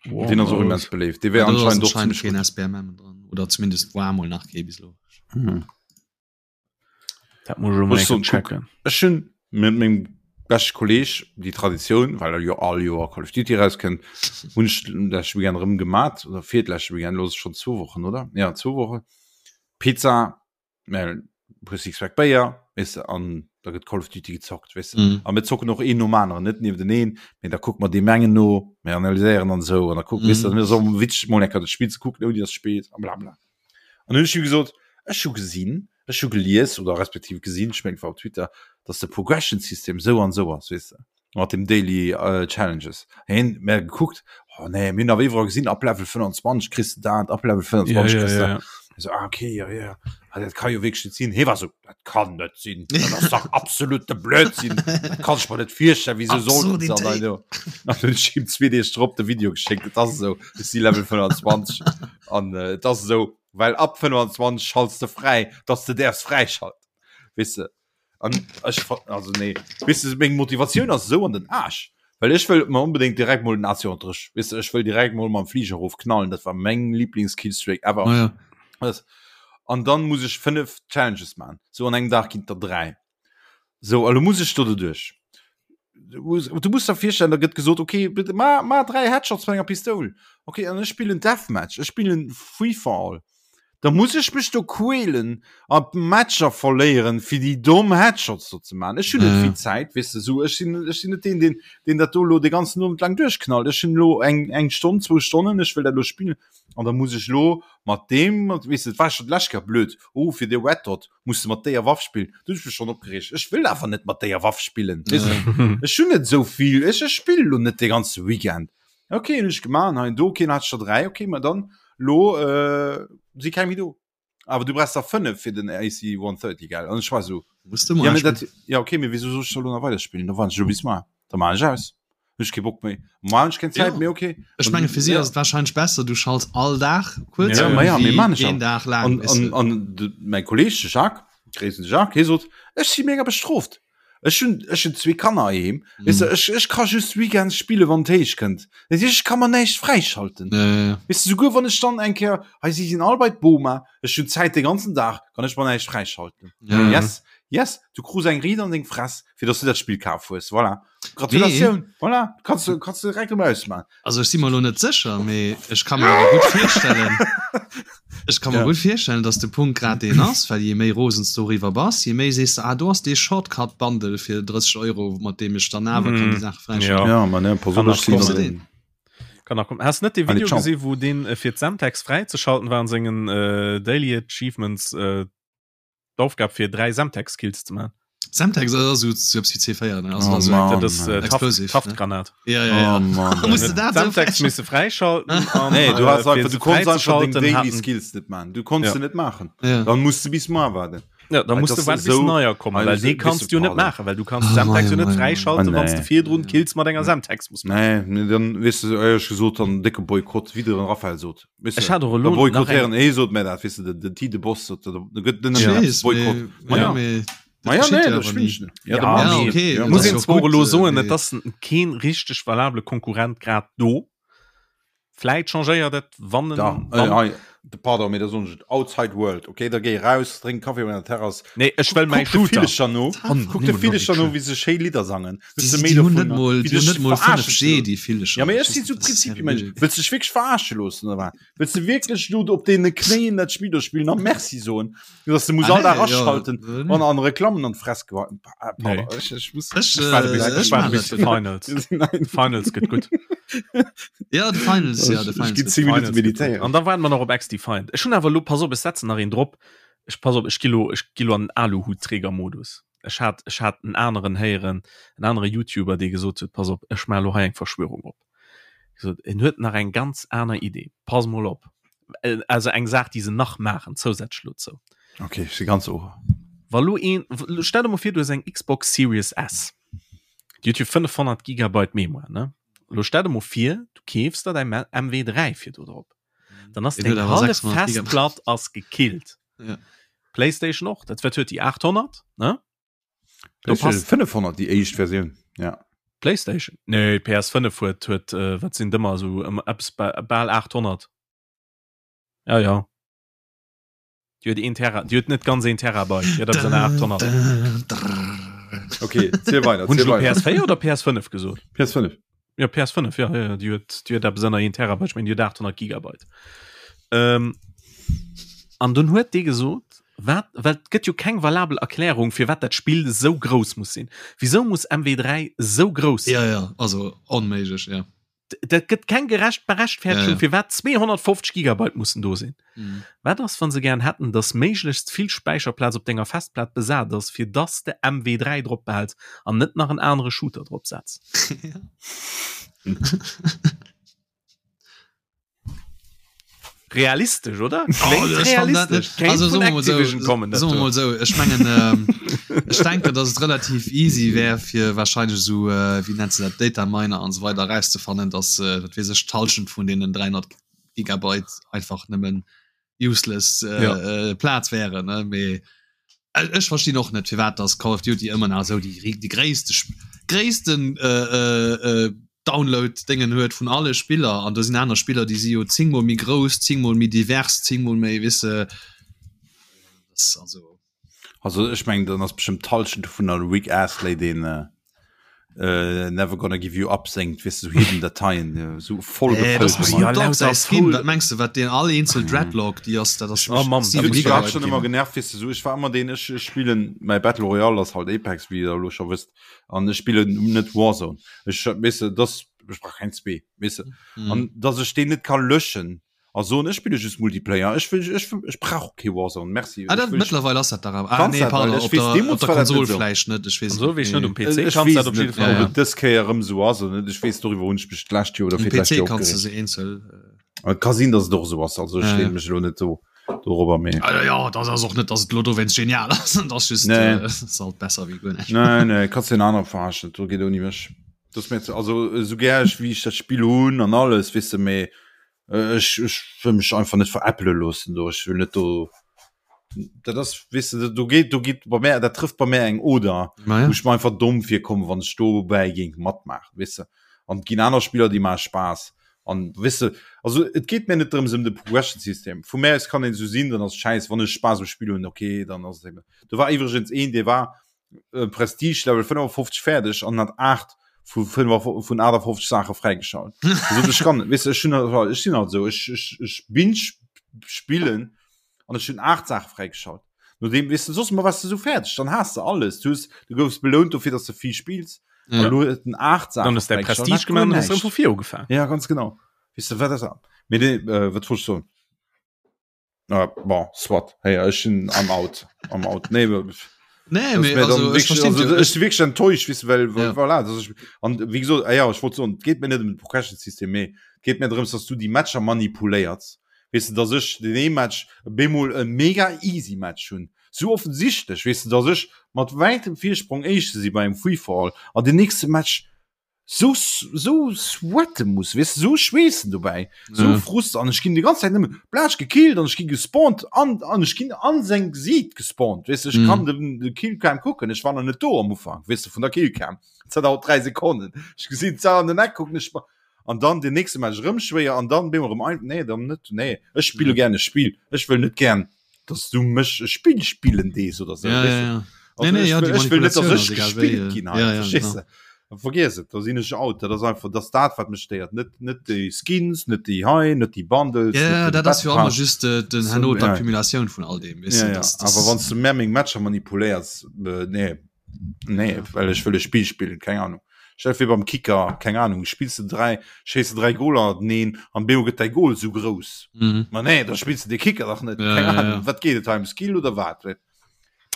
Den ass och immens beléift. Dee wär anscheinend och ziemlech gutt. SBMM dran oder zumindest war mol nach kee bis lo. Hm. Dat muss ech mol eng checken. Ech hunn mit mengem beschte Kolleg déi Traditioun, well er jo all Joer Call of Duty rauskënnt, hunn ech leschte Weekend erëm gemat oder fir d'leschte Weekend, lo ass et schonn zwou Wochen, oder? Ja, zwou Wochen. Pizza, mä puer Sixpack Béier, weess de, an da gëtt Call of Duty gezockt, weess de. Mhm. A mir zocken och een nom aneren, net niewenteneen, mee da kucke mer deem engen no, mir analyséieren an esou an da kucken, weess de, Mhm. mir ass och witzeg mol eng Kéier dat Spill ze kucken, ouni dass spillt a bla bla. An hunn ech him gesot, ech hu gesinn, ech hu gelies oder respektiv gesinn, ech mengen et war op Twitter, dass de Progression System esou an esou ass, weess de, mat dem Daily äh, Challenges. Hien mer gekuckt, oh nee, mir hunn awer iwwerall gesinn, ab Level 25 kriss de dat, ab Level 25 Ja, ja, kriss de ja, dat. ja. Ich so, ah, okay, ja, ja. Ah, dat kann jo wierklech net sinn. Hie war so, dat kann net sinn, dat ass dach absolute Blödsinn, dat kann ech mer net virstellen, wieso sollten se an Absurdität. deine. An hunn ech him zwee Deeg drop de Video geschéckt, et ass esou, ech si Level 25. An äh, et ass esou, well ab 25 schalts de fräi, dass de däerfs fräischalten. Weess de? An ech also nee, weess de, meng Motivatioun ass esou an den Aarsch, well ech wëll mer onbedéngt direkt mol den AC-130, weess de, ech wëll direkt mol mam Fliger erof knallen, dat war meng Lieblings-Killstreak ever. Ah, ja. Das. An dann muss ech 5 Challenges man. So an engem Dag ginn der 3. So, a lo muss ech do doduerch. Du muss, du musst der virstellen, da gëtt gesot, okay, bitte ma, ma 3 Headshots mat enger Pistoul. Okay, an ech spillen Deathmatch, ech spillen Free for All. Da muss ech mech do quälen a Matcher verléieren, fir déi domm Headshots do ze man. Ech hunn net Ja. vill Zäit, weess de, so ech sinn, ech sinn net deen, deen, deen dat do lo de ganzen Owend laang duerchknallt. Ech hunn lo eng, eng Stonn, zwou Stonnen, ech wëll dat lo spillen. An da muss ech lo mat deem, mat, weess de, et war scho d'lescht Kéier blöd, oh, fir de Red Dot muss de mat déier Waff spillen. Du hunn ech mech schonn opgereegt. Ech wëll awer net mat déier Waff spillen, weess de. Ech hunn net esou vill, ech, ech spillen lo net de ganze Weekend. Okay, hunn ech gemaach, hei do, okay, dann hat ech der 3, okay, ma dann lo äh, si keng méi do. Awer du brauchst der 5 fir den AC 130, gell? An ech war so, Musst du mal ja, mee dat, ja okay, mee wieso soll ech da lo nach weiderspillen? Da warten ech lo bis mar. Da maan ech aus. Hunn ech kee Bock méi. Mar hunn ech keng Zäit Ja. méi, okay. Ech menge fir si ass et wahrscheinlech besser, du schalts all Dag kuerz Ja, un, ma ja, wéi mee maan ech een auch. Dag laang, An, weess an, de. an de, mäi Kolleg, de Jacques, Gréissen de Jacques, hie sot, ech si mega bestroft. Ech hunn, ech hunn zwee Kanner heiheem, weess de, ech, ech ka just weekends spille wann et héich kënnt. Dat heescht, ech ka mer näischt fräischalten. Ja, ja, ja. Weess de, souguer wann ech dann eng Kéier, hei si sinn all bei d'Boma, ech hunn Zäit de ganzen Dag, kann ech mer näischt fräischalten. Ja, ja. Yes, yes, du krus eng Riit an deng Fress, fir dass du dat Spill kaf hues. Voilà. Gratulatioun, voilà, kanns du, kanns du direkt erëm ausmachen. Also ech si mer elo net sécher, mee ech ka mer awer gutt virstellen, ech ka mer Ja. gutt virstellen, datt de Punkt grad deen ass, well je méi rosen s doriwwer bass, je méi sees de, ah do ass dee Shortcut-Bundle fir 30 Euro, mat deem ech dann awer kann déi Saach fräischalten. Ja. Ja, ma ne, pass op, Kann ech nach sinn kommen. an den- Kann nach kommen. Hast net de Allez, Video ciao. gesinn, wou deen äh, fir d'Semtex fräizeschalten war an sengen äh, Daily Achievements äh, d'Aufgab fir 3 Semtex Kills ze man. Semtex ass esou sou eppes wéi C4 ne? Also Oh dat ass Mann. Dat ass äh, Taft, Explosive, ne? Taftgranat. Ja, ja, ja. Oh Mann. Musst du dat sou Semtex misse fräischalten an Nee, du äh, hast fir einfach, se du konntest einfach deng fräizeschalten Daily hatten Skills net machen. Du konntest Ja. se net machen. Ja. Dann musst du bis mar warten. Ja, da Weil musst du das warten ist bis so- neuer kommen, Also well so dee bist kannst du du net pardon. machen, well du kannst Ah, Semtex jo mei, net mei, mei. fräischalten, Ah, wann du nee. virdrun Kills mat enger Semtex muss machen. Nee, nee, dann weess du, éierlech gesot, dann décke Boykott, wéi de Raphael sot. Weess Ech du, hat och da elo nach eng boykottéieren, hee sot mir dat, weess du, den, den Tide Boss sot, da da gëtt net Ech nëmmen weess, Boykott. mee, Ma ja, ja. mee Ma ja, dat nee, geschitt jo dat awer spillen ni. ech net. Ja, Ja, da Ja, mee okay, ja, dat muss ass een jo zwar och gutt, elo äh, soen, mee et ass keen richteg valabele Konkurrent grad do. Vläit changéiert et, wann en, Da, äh, wann hei, de pardon, mee da soen ech et, Outside World, okay, da géi raus, drénk Kaffi op enger Terrass, Nee, ech wëll mäi kuck de Shooter. Villecher no, Mann, kuck de nimm Villecher no, Logic. wéi se schéi Lidder sangen. Déi, Hues de méi déi hunn net dovunner, mol, wéi déi hunn dech net mol verarschen 5G, ze loossen. déi Villecher. Ja, mee Ech ech sinn weess sou net, dat ass Prinzipiemensch. seriö. Wëlls de dech wierklech verarsche loossen, oder wat? Wëlls de wierklech lo op deene Knéien dat Spill do spillen a Merci soen, dass de muss Ah, all Dag nee, ja, aschalten äh, nee. an an Reklammen an d'Fress gehauen? Ah, Nee. Pardon, ech, ech muss, Ech, Ech waarde äh, bis, ech ech waarde maan bis dat. de Finals. Nein. Finals gëtt gutt. Ja, de Finals, ja, de Ech Finals ginn gëtt 10 Minuten Finals gëtt gutt. meditéieren. An da waarden mer nach op XDefiant. Ech hunn awer elo, pass op, ech setzen nach een drop. Ech pass op, ech gi lo, ech gi lo an den Aluhutträgermodus. Ech hat, ech hat en aneren héieren, en anere YouTuber, dee gesot huet, pass op, ech maache lo hei eng Verschwörung op. Gesot, en huet nach eng ganz aner Idee. Pass mol op. Äh, also eng Saach, déi se nach maachen, zousätzlech dozou. Okay, ech si ganz Ohr. Wa lo een, stell der mol vir, du hues eng Xbox Series S. Déi huet jo 500 Gigabyte Mémoire, ne? Lo stell der mol vir, du keefs der däi MW3 fir do drop. Dann ass Deen huet deng awer hallef 600 Gigabyte. Festplatt ass gekillt. Ja. PlayStation och, dat wat huet déi 800, ne? Do PlayStation passt 500 déi éischt Versioun, ja. PlayStation? Nee, PS5 huet huet äh, wat sinn dëmmer esou ëm eppes ba bal 800. Ja ja. Déi huet een Tera, déi huet net ganz een Terabyte, déi huet eppes an der 800. Okay, ziel weider, Hunn ech ziel elo weider. PS4 oder PS5 gesot? PS5. Ja PS5 ja, ja, déi huet déi huet eppes ënner een Terabyte, ech mengen déi huet 800 Gigabyte. Ähm, an dunn huet dee gesot, wat well et gëtt jo keng valabel Erklärung firwat dat Spill esou grouss muss sinn. Wisou muss MW3 esou grouss sinn? Ja, ja, also onméiglech, ja. Dat gëtt keng gerecht Berechtfertegung Ja, ja. firwat 250 Gigabyte mussen do sinn. Mhm. Wat ass wann se gären hätten, datt méiglechst vill Späicherplaz op denger Festplat besat ass, fir datt de MW3 drop behäls an net nach en anere Shooter drop setz? Ja. Realistesch, oder? Oh, Kléngt ech fand dat realistesch. net. Kéint Also vun soe mer mol sou, Activision kommen, dat soe mer do. mol sou, ech mengen, ähm, ech denken, dass et relativ easy wär, fir wahrscheinlech esou, äh, wéi nennt se dat, Data Miner an esou weider erauszefannen, dass, äh, wat weess ech, d'Hallschent vun deenen 300 Gigabyte einfach nëmmen useless äh, Ja. äh, Plaz wären, ne? Mee äh, ech verstinn och net, firwat dass Call of Duty ëmmer nach esou déi, déi gréisste, gréissten äh, äh, äh, Download-Déngen huet vun alle Spiller an do sinn aner Spiller, déi si jo zéngmol méi grouss, zéngmol méi divers, zéngmol méi, weess de, das also. Also ech mengen dann ass bestimmt d'Hallschent dovun an Rick Astley deen äh, äh, Never Gonna Give You Up séngt, weess de, sou hidden Dateien, äh, sou voll Äh, das gefëllt muss Ja, mat. Snoop Dogg lauter säi Skin, voll. wat mengs de, wat deen all eenzel Dreadlock, déi ass, dat ass Oh Mann, 7 dat muss Mich hat Gigabyte schon ginn. immer genervt, weess de, sou ech war ëmmer deen, ech ech spillen mäi Battle Royale ass halt Apex, wéi der elo scho wësst, an ech spillen net Warzone. Ech weess de, das ech brauch keng zwee, weess de. Mhm. An dass ech deen net ka löschen. A soen ech spille just Multiplayer, ech wëll ech ech brauch kee Warzone, merci. Ah, dat mëttlerweil ass dat dach awer. Ah, nee, pardon, op der, op der Konsol vläicht net, ech weess et net. net um PC ech kanns weess dat op net, jidde Fall. ob et dës Kéier erëm esou ass oder net, ech weess doriwwer hunn ech mech d'lescht Joer oder Um fir d'lescht PC Joer kanns du opgereegt. se eenzel. Et ka sinn, datt et och esou ass, also ech Ja, leeë ja. mech elo net do dorobber, mee. Ah, ja, dat ass och net, datt et elo dowéinst genial ass, dat ass just, Nee. äh, ass halt besser wéi guer näischt. Nee, nee, kanns den aner verarschen, do geet ouni mech. Dat ass mir ze, also esou gär ech wéi ech dat Spill hunn an alles, weess de, mee Ech ech wëll mech einfach net veräppele loossen do. Ech wëll net do dat ass weess de do geet do geet bei mär dat trëfft bei mär eng Oder Ma ja. wou ech mer einfach domm virkommen, wann ech dobäi géing matmaachen, weess de. An et ginn aner Spiller déi maache Spaass an weess de also et geet mär net drëms ëm de Progression System. Vu mär aus kann een esou sinn, dann ass et schäiss. Wann ech Spaass um Spill hunn, okay, dann ass et eben. Do war iwwregens een dee war äh, Prestige Level 55 fäerdeg an hat 8 vu vun 58 Sache fräigeschalt. Also, ich kann weißt du, ich, hun, ich sinn halt so ich, ich, ich bin spillen an ich hun 8 Sache fräigeschalt. Nodem weißt du, sos mal was du so fertig, dann hast du alles. Du, hast, du goufst belohnt dofir, dass du viel spielst. Ja. An lo den 8 Sachen Dann ist der Prestige gemacht und hast du vu vir ugefaangen. Ja, ganz genau. Weißt du, wat das an? Mee, äh, wat wollt ich soen? Ah, bon, soit. Hey, ech sinn am out. Am out. Nee, Nee, mee, also, ech verstinn also, jo. ech si wierklech enttäuscht, weess de, well, well Ja. voilà, dass ech, an wéi gesot, ah ja, ech wollt soen, et geet mir net ëm de Progression System, mee et geet mir drëms, dass du déi Matcher manipuléiers. Weess de, dass ech den ee Match bemol e mega easy Match hunn, sou offensichtlech, weess de, dass ech mat wäitem Virsprong Éischte si bei engem Free-for-all an den nächste Match sou sou sweate muss weess de, sou schweessen dobäi, sou Ja. Frust an ech ginn déi ganz Zäit nëmme blatsch gekillt an ech gi gespawnt an an ech ginn an seng Gesiit gespawnt weess de, ech Mhm. kann den de Killcam kucken, ech war nach net do am Ufank weess de vun der Killcam, dat dauert 3 Sekonnen, ech gesinn d'Saach an den Eck kucken ech an dann den nächste Match erëm schwéier an dann bemol erëm ein nee dann net nee ech spille Ja. gär e Spill, ech wëll net gär dass du mech e Spill spillen dees oder so Ja, weißt ja, du? ja. Also Nee, nee, ech ja, wëll, déi ech wëll net, dass Manipulatioun ech ass egal wéi, gespillt äh, ginn hei, ja, ja, verstees genau. de? Vergiess et, da sinn ech out. Dat ass einfach, dat ass dat, wat mech stéiert. Net, net déi Skins, net déi hei, net déi Bundles, Ja, net ja, den dat ass Battle jo ëmmer Pass. just äh, den So, herno ja. d'Accumulatioun vun all deem, weess Ja, de, ja. das, das Awer wann s du mär meng Matcher manipuléiers, äh, nee, nee, Ja. well ech wëll e Spill spillen, keng Ahnung. Stell dir vir beim Kicker, keng Ahnung, spills de 3, schéiss de 3 Goler neen an bemol gëtt däi Goal sou grouss. Mhm. Ma nee, da spills de de Kicker dach net, Ja, keng ja, Ahnung, ja. wat geet et hei ëm Skill oder wat?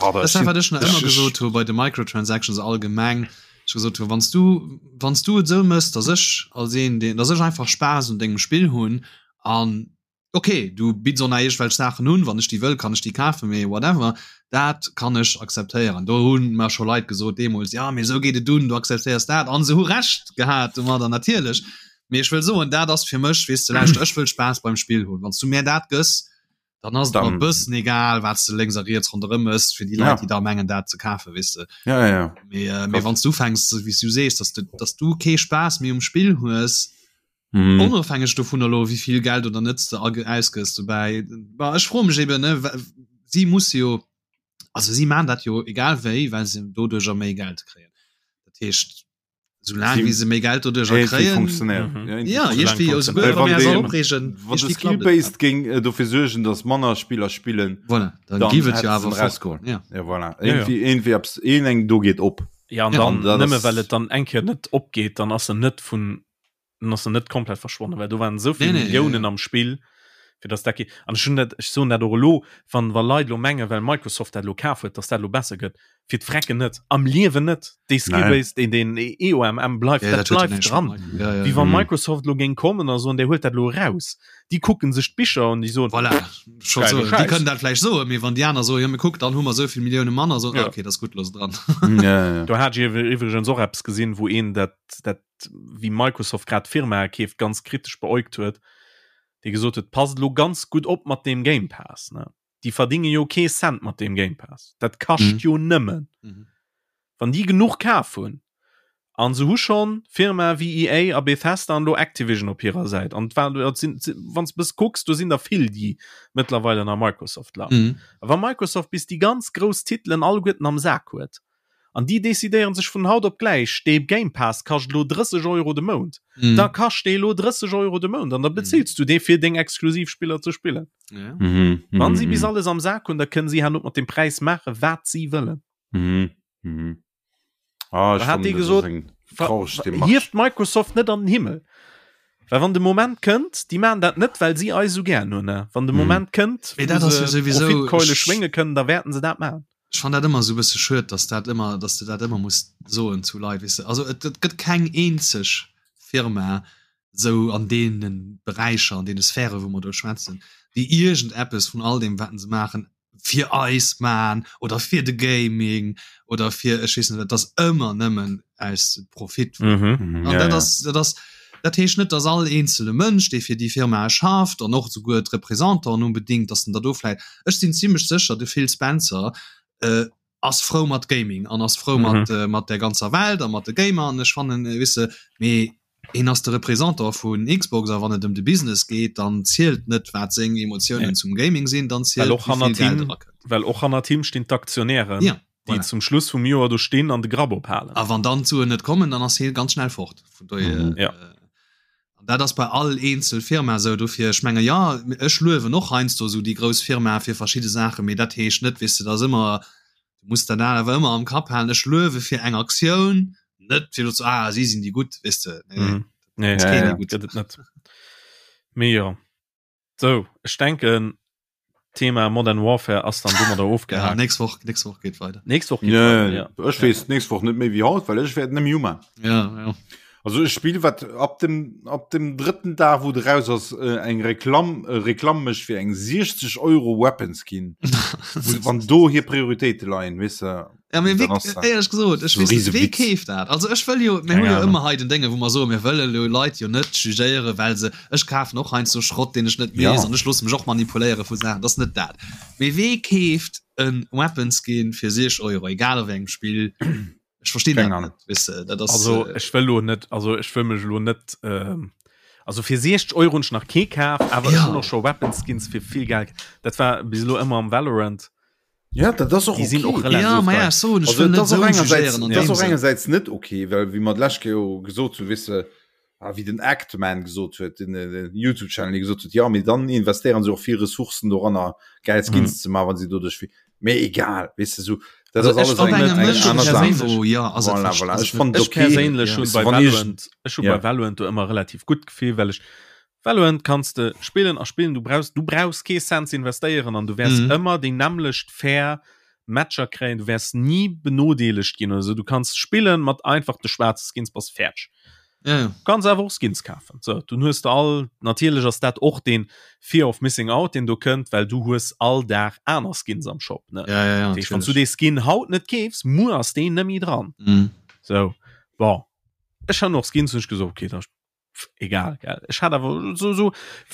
Ah, Das ist wat ech nach ëmmer gesot hu bei de Microtransactions allgemeng ech gesot hu wann du wann du et sou mëss, dass ech als een deen dass ech einfach Spaass un dengem Spill hunn an okay du bidds och nach iergendwelch Saachen un, wann ech déi wëll kann ech déi kafen, mee whatever, dat kann ech akzeptéieren. Do hunn mer scho Leit gesot deemools, ja mee esou geet et un, du akzeptéiers dat an se hu Recht gehat domadder natierlech. Mee ech wëll soen, dat ass fir mech, weess de, lauschter ech wëll Spaass beim Spill hunn, wann s du mär dat gëss, dann ass et mer e bëssen egal wat s de lénks a riets ronderëm mëss fir déi Leit, déi da mengen dat ze kafen, weess de. Ja, ja, ja. Mee, äh, mee wann s du ufänks, wéi s du sees, dass du, dass du kee Spaass méi um Spill hues, Mhm. Onofhängeg dovun elo wéi vill Geld oder net de ausgëss dobäi. Bah, ech froe mech eben ne si musse jo also si maan dat jo egal wéi, well se doduercher méi Geld kréien. Dat heescht soulaang wéi se méi Geld doduercher kréien mhm. ja iergendwéi jo souguer wa mir eis all opreegen Wann de Skill-based géing äh, dofir suergen, datt manner Spiller spillen, voilà, dann giff et jo awer rausgoen. Ja. Ja, voilà. Irgendwie, ja, ja. irgendwie abs een eng do geet op. Ja, an Ja. dann Dat nëmme ass- well et dann eng Kéier net opgeet, dann ass en net vun dann ass en net komplett verschwonnen, well do waren esou vill Nee, nee, Milliounen ja, ja. am Spill, fir dass dat ge an ech hunn dat ech soen dat och elo, wann wa Leit elo mengen, well Microsoft dat elo kaf huet, dass dat elo besser gëtt, fir d'Frecken net, am Liewen net, dee Skill-Base, deen deen EOMM bleift, Ja, dat dat huet jo bleift näischt dran. mat Micro- ja, ja, Wéi ja. wa Mhm. Microsoft elo géing kommen a soen, där huelt dat elo eraus, déi kucken sech d'Bicher an déi soen, Voilà, scho Geile so. Déi Schäiss. kënnen dat vläicht soen, mee wann déi aner soen, jo mee kuck, dann hu mer esou vill Millioune manner, so, Ja. ah, okay, dat ass gutt, looss dran. Ja, ja. Do hat ech iwwregens och eppes gesinn, wou een dat dat wéi Microsoft grad Firmae keeft, ganz kritesch beäugt huet, dee gesot huet, passt elo ganz gutt op mat deem Game Pass, ne? Déi verdinge jo kee Cent mat deem Game Pass. Dat kascht Mhm. jo nëmmen. Mhm. Wann déi genuch kaf hunn, an se hu schonn Firmae wéi EA a Bethesda an elo Activision op hirer Säit, an et war, et sinn, wann s de bëss kucks, do sinn der vill, déi mëttlerweil ënner Microsoft lafen. Mhm. A wa Microsoft bis déi ganz grouss Titelen alleguerten am Sak huet, An déi decidéieren sech vun haut op gläich, dee Game Pass kascht elo 30 Euro de Mount. Mhm. Da kascht dee elo 30 Euro de Mount an da bezills du dee fir deng exklusiv Spiller ze spillen. Ja. Mhm. Wann si bis Mhm. alles am Sak hunn, da kënnen si herno mat dem Präis maache wat si wëllen. Mhm. Mhm. Ah, ech Da hat fannen, dee dat ass gesot, eng Ver- traureg Demarche. Hieft Microsoft net an den Himmel. Well wann de Moment kënnt, déi maachen dat net, well si eis esou gären hunn. Wann de mhm. Moment kënnt, wou se Profitkeule schwénge kënnen, da wäerten se dat maachen. Ech fan dat ëmmer sou bësse schued, dass dat ëmmer, dass de dat ëmmer muss soen zu Leit, weess de. Also et, et gëtt keng eenzeg Firma sou an deene Beräicher, an deene Sphäre wou mer do schwätzen, déi iergendeppes vun all deem wat se maachen fir eis man oder fir de Gaming oder fir ech weess net wat, dat ass ëmmer nëmmen aus Profit. Mhm. Mhm, An ja, dat ja. ass, dat ass, dat heescht net, dass all eenzele Mënsch, dee fir déi Firmae schafft an och souguer d'Représentanten unbedingt, dass en der do vläit, ech sinn zimlech sécher, de Phil Spencer äh, ass frou mat Gaming an ass frou Mhm. mat, äh, mat der ganzer Welt a mat de Gamer an ech fannen, äh, weess de, mee hien ass de Représentant vun Xbox a wann et ëm de Business geet, dann zielt net wat seng Emotiounen Nee. zum Gaming sinn, dann Well zielt och wéi vill hannert Geld him, erakënnt. well och hannert him stinn d'Aktionären, Ja, déi voilà. zum Schluss vum Joer do stinn an de Grapp ophalen. A wann dann d'Suen net kommen, dann ass hie ganz schnell fort. Vun dohier, Mhm. Ja. äh, an dat ass bei all eenzel Firma esou. Dofir, ech menge jo, ech luewen och heiansdo esou déi grouss Firmae fir verschidde Saachen, mee dat heescht net, weess de, dat ass ëmmer, du muss dat awer ëmmer am Kapp halen, ech luewe fir eng Aktioun, net fir elo ze ah, si sinn déi gutt, weess de. Nee, nee, Mhm. Nee, ass Ja, keen ja. déi gutt. gëtt et net. Mee jo. Sou, ech denken, Thema Modern Warfare ass dann domadder Ja, ofgehakt. nächst Woch, nächst Woch geet weider. Nächst Woch geet Ja, weiter, ja. ech weess nächst Woch net méi wéi haut, well ech wäert net méi uman. Ja, ja. Also ech spill wat ab dem ab dem drëtten Dag wou de raus ass äh, eng Reklamm äh, Reklamm mech fir eng 60 Euro Weapon Skin. Wo- Wann do hir Prioritéite leien, weess de. Ja, mee Dann wéi, ass dat éierlech gesot, ech so weess net, riese wee Witz. keeft dat? Also ech wëll jo, mir Keng hu jo Ahnung. ëmmer hei den Dénge, wou mer soen, mir wëlle lo Leit jo net jugéieren, well se, ech kafen och heiansdo Schrott, deen ech net Ja. weess an ech loosse mech och manipuléiere vu Saachen, dat ass net dat. Mee wee keeft e Weapon Skin fir 60 Euro, egal a wéi engem Spill? Ech verstinn Keng dat Ahnung. net, weess de, dat ass, Also äh, ech wëll lo net, also ech wëll mech lo net, ähm, also fir 60 Euro hunn ech nach kee kaf, awer ech Ja. hunn och scho Weapon Skins fir vill Geld. Dat war bis elo ëmmer am Valorant. Ja, dat ass och Déi sinn och okay. relativ Ja, ma ja, teuer. ech soen, ech Also, wëll et net ass och esou engersäits, jugéieren an et ass deem och Sënn. engersäits net okay, well wéi mer d'lescht Kéier jo gesot hunn, weess de, ah, wéi den Actman gesot huet, den, äh, den YouTube-Channel, dee gesot huet, ja, mee dann investéieren se och vill Ressourcen doranner, geil Skins Mhm. ze maachen, wann se doduerch vill. Mee egal, weess de, sou, dat Also ass ech alles Op eng, fannen engem eng ech aner mënschlechen Saach. perséinlech Niveau, ja, ass et Voilà, verst- voilà. ass Ech et net. fannen et Ech okay. perséinlech Ja. hunn Weess de, bei wann iergend Valorant, ech hu ja. bei Valorant do ëmmer relativ gutt Gefill, well ech Valorant kanns de spillen a spillen, du brauchs du brauchs kee Cent ze investéieren an du wäers Mhm. ëmmer déi nämmlecht fair Matcher kréien, du wäers ni benodeelegt ginn oder sou. Du kanns spillen mat einfach de schwaarze Skins, bass fäerdeg. Ja, ja. Du kanns awer och Skins kafen. Sou, dunn hues de all, natierlech ass dat och deen Fear of Missing Out, deen do kënnt, well du hues all Dag aner Skins am Shop, ne? Ja, ja, ja, Dat heescht, wann s du natierlech. dee Skin haut net keefs, muer ass deen net méi dran. Mhm. Sou, bon, ech han och Skins, hunn ech gesot, okay, da egal gell ech hat awer so so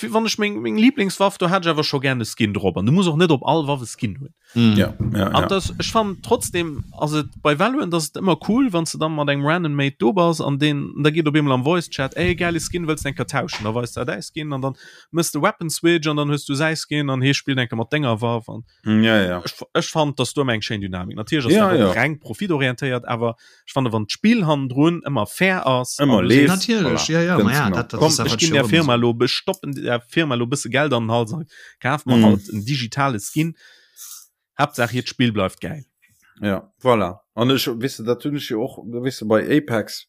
wann ech meng meng Lieblingswaff do hat ech awer scho gerne Skin drop an du muss och net op all Waff e Skin hunn mm. ja, ja, an ja. das ech fand trotzdem ass et bei Valorant ass et ëmmer cool wann s du dann mat engem random Mate do bass an den da geet op eemol am Voice Chat ey geile Skin wëlls de eng Kéier tauschen da weist der däi Skin an dann mëss de Weapon Switch an dann hues du säi Skin an hee spillt eng Kéier mat denger Waff an mm, ja, ja. ech, ech fand dass do ëmmer eng schéin Dynamik natierlech ass ja, dat och ja. reng profitorientéiert awer Ech fannen wann d'Spill hannendrun ëmmer fair ass ëmmer leeft natierlech ja, ja, voilà. ja, dat, dat Komm, ech ginn der Firma lo bestoppen der Firma lo bësse Geld an den Hals an kaf mer mm. halt en digitale Skin. Haaptsaach hiert Spill bleift geil. Ja voilà. An ech wisse dat hunn ech jo och wisse bei Apex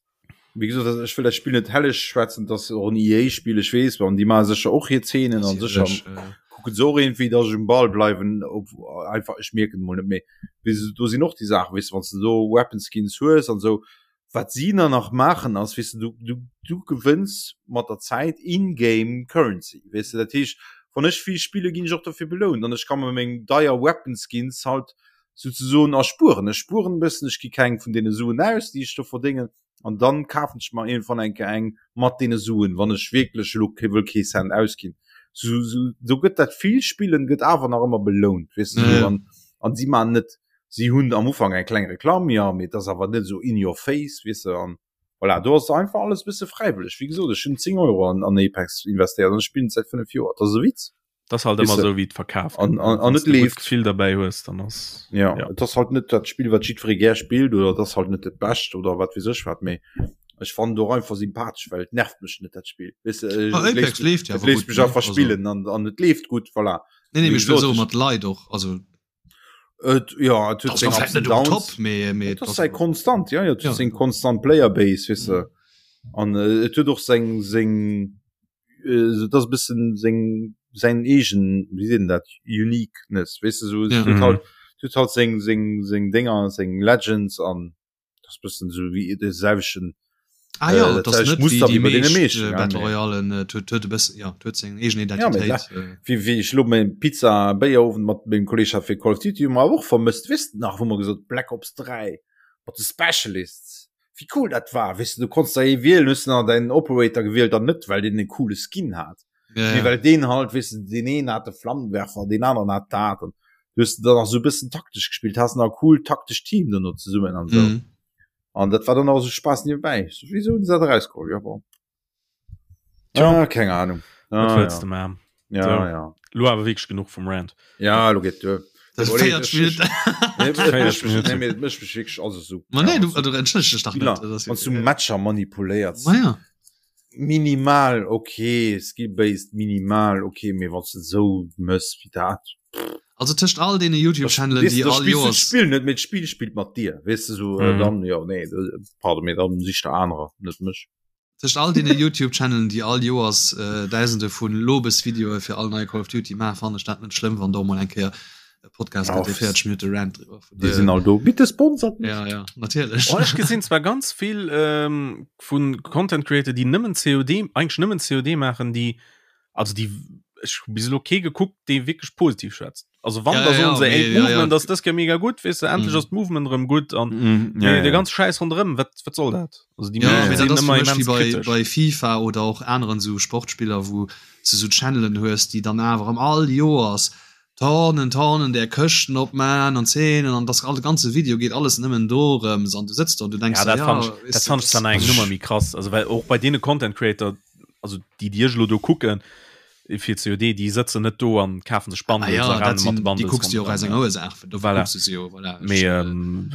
wéi gesot also ech wëll dat Spill net helleg schwätzen, dass och en EA Spill ech weess an déi maache sécher och hir Zeenen an sécher kucken se och iergendwéi dass ech um Ball bleiwen op einfach ech mierken et mol net méi. Weess de do sinn och déi Saachen weess de wann s de do Weapon Skins hues an esou wat si dann nach maachen ass weess de du du du gewënns mat der Zäit in-game Currency weess de dat heescht wann ech vill spille ginn ech och dofir belount an ech ka mer meng deier Weapon Skins halt souzesoen erspueren. Ech spueren e bëssen, ech gi keng vun deene Suen aus, déi ech do verdéngen, an dann kafen ech mer iergendwann eng Kéier eng mat deene Suen, wann ech wierklech elo kee wëll kee Cent ausginn. Sou, sou, do gëtt dat vill Spillen gëtt awer nach ëmmer belount, weess de, sou, an, an si maachen net, si hunn am Ufank eng kleng Reklamm, jo, mee et ass awer net esou in your face, weess de, an voilà, do ass einfach alles e bësse fräiwëlleg. Wéi gesot, ech hunn 10 Euro an, an Apex investéiert an ech spillen et säit 5 Joer, dat ass e Witz. Das halt immer so wie verkaaft an, an, an net leeft Gefill dabei hues dann ass ja, ja. das halt net dat Spiel wat jiddweree gär spillt oder das halt net dat bescht oder wat weess ech wat mee ech fannen et och einfach sympathesch well et nervt mech net dat Spiel weess de Ah, et Apex léisst leeft ja et awer léisst gutt mech ne einfach also spillen an an et leeft gutt voilà nee nee wéi mee ech wëll gesot soe ech mat Leit och also et ja et huet ass seng nach Ups vläit and net um Downs Top mee mee et et ass ass säi awer konstant ja ja et huet ja seng konstant Playerbase weess de mhm. an et huet och seng seng. äh, dat ass e bëssen seng säin eegen, wéi seet een dat, Uniqueness, weess de, sou, ja. huet halt, huet halt seng, seng, seng Dénger, seng Legends an das bëssen sou wéi de selwechten Ah ja, äh, das net Muster wéi bei deene meeschten äh, Battle Royalen äh, huet huet e bëssen ja huet seng eegen Identitéit. Ja, äh. Wéi wéi ech lo meng Pizza Béierowend mat mengem Kolleg hat fir Call of Duty hu mer och vermësst, weess de nach, wou mer gesot Black Ops 3 mat de Specialists, wéi cool dat war, weess de, du konns der ee wielen, hues de nach däin Operator gewielt an net well deen e coole Skin hat. Ja, ja. well deen halt weess de, deen een hat de Flammenwerfer, deen aneren hat dat an du hues dann nach sou e bëssen taktesch gespillt, has nach e cool taktescht Team dono zesummen an sou. Mhm. An dat war dann auch so Spaß nebenbei. So, wieso hun se dat erausgeholl? Ja, bon. Tja. Ah, keng Ahnung. Ah, Wat wëlls ja. de man? Ja, So. ja. Lo awer wierklech genuch vum Rant. Ja, lo geet duer. Das Nee, 40 Minuten. Nee, et 40 mécht mech- Minuten. nee, mee et mécht mech wierklech also so. Ma nee, du, du entschëllegst dech dach Spiller, net. Das ist- wann du Matcher manipuléiers. Ma ja. Minimal ok, skill-based minimal ok, mee wann s de esou mëss wéi dat. Also tëscht all deene YouTube-Channelen, déi all Joers. D'Spill net, mee d'Spill spillt mat dir, weess de sou, Mhm. dann jo nee, pardon, mee dann sich der anerer, net mech. Tëscht all deene YouTube-Channelen, déi all Joers Dausende vun Lobesvideoe fir all nei Call of Duty maachen, fannen ech dat net schlëmm, wann do mol eng Kéier e Podcast gëtt, dee 40 Minutte Rant driwwer. Déi sinn all do. Bitte sponsert mich. Ja, ja, natierlech. Oh, ech gesinn zwar ganz vill ähm, vun Content Creator, déi nëmmen COD, eigentlech nëmmen COD maachen, déi, also déi, ech hu bis elo kee gekuckt, dee wierklech positiv schwätzt. Also wann, Ja, da ja, soen se, mee, ey, ja, ja. d'Movement ass dës Kéier mega gutt, weess de, endlech Mhm. ass d'Movement erëm gutt an Mm, mee ja, ja. de ganz Schäiss ronderëm, wat, wat soll dat? Also déi Ja, meescht mee sinn dat ass fir ëmmer mech wéi immens bei, kritesch. bei FIFA oder och aneren sou Sportspiller, wou s de sou Channelen hues, déi dann awer erëm all Joers Tonnen, Tonnen där Këschten opman an Zeenen an das all de ganze Video geet alles nëmmen dorëms an du sëtz do an du denks Ja, der, dat ja, fand ich, weess dat du, fand ich das- dann eng Nummer méi krass. Also well och bei deene Content Creator, also déi déi ech elo do kucken fir COD, déi sëtzen net do an kafen sech Ah Bundles ja, a dat rennen mat de sinn, déi Bundles kucks du jo och ronderëm, aus enger ja. Ursaach, dofir Voilà. kucks du se jo, voilà. Ech, Mee äh, ähm,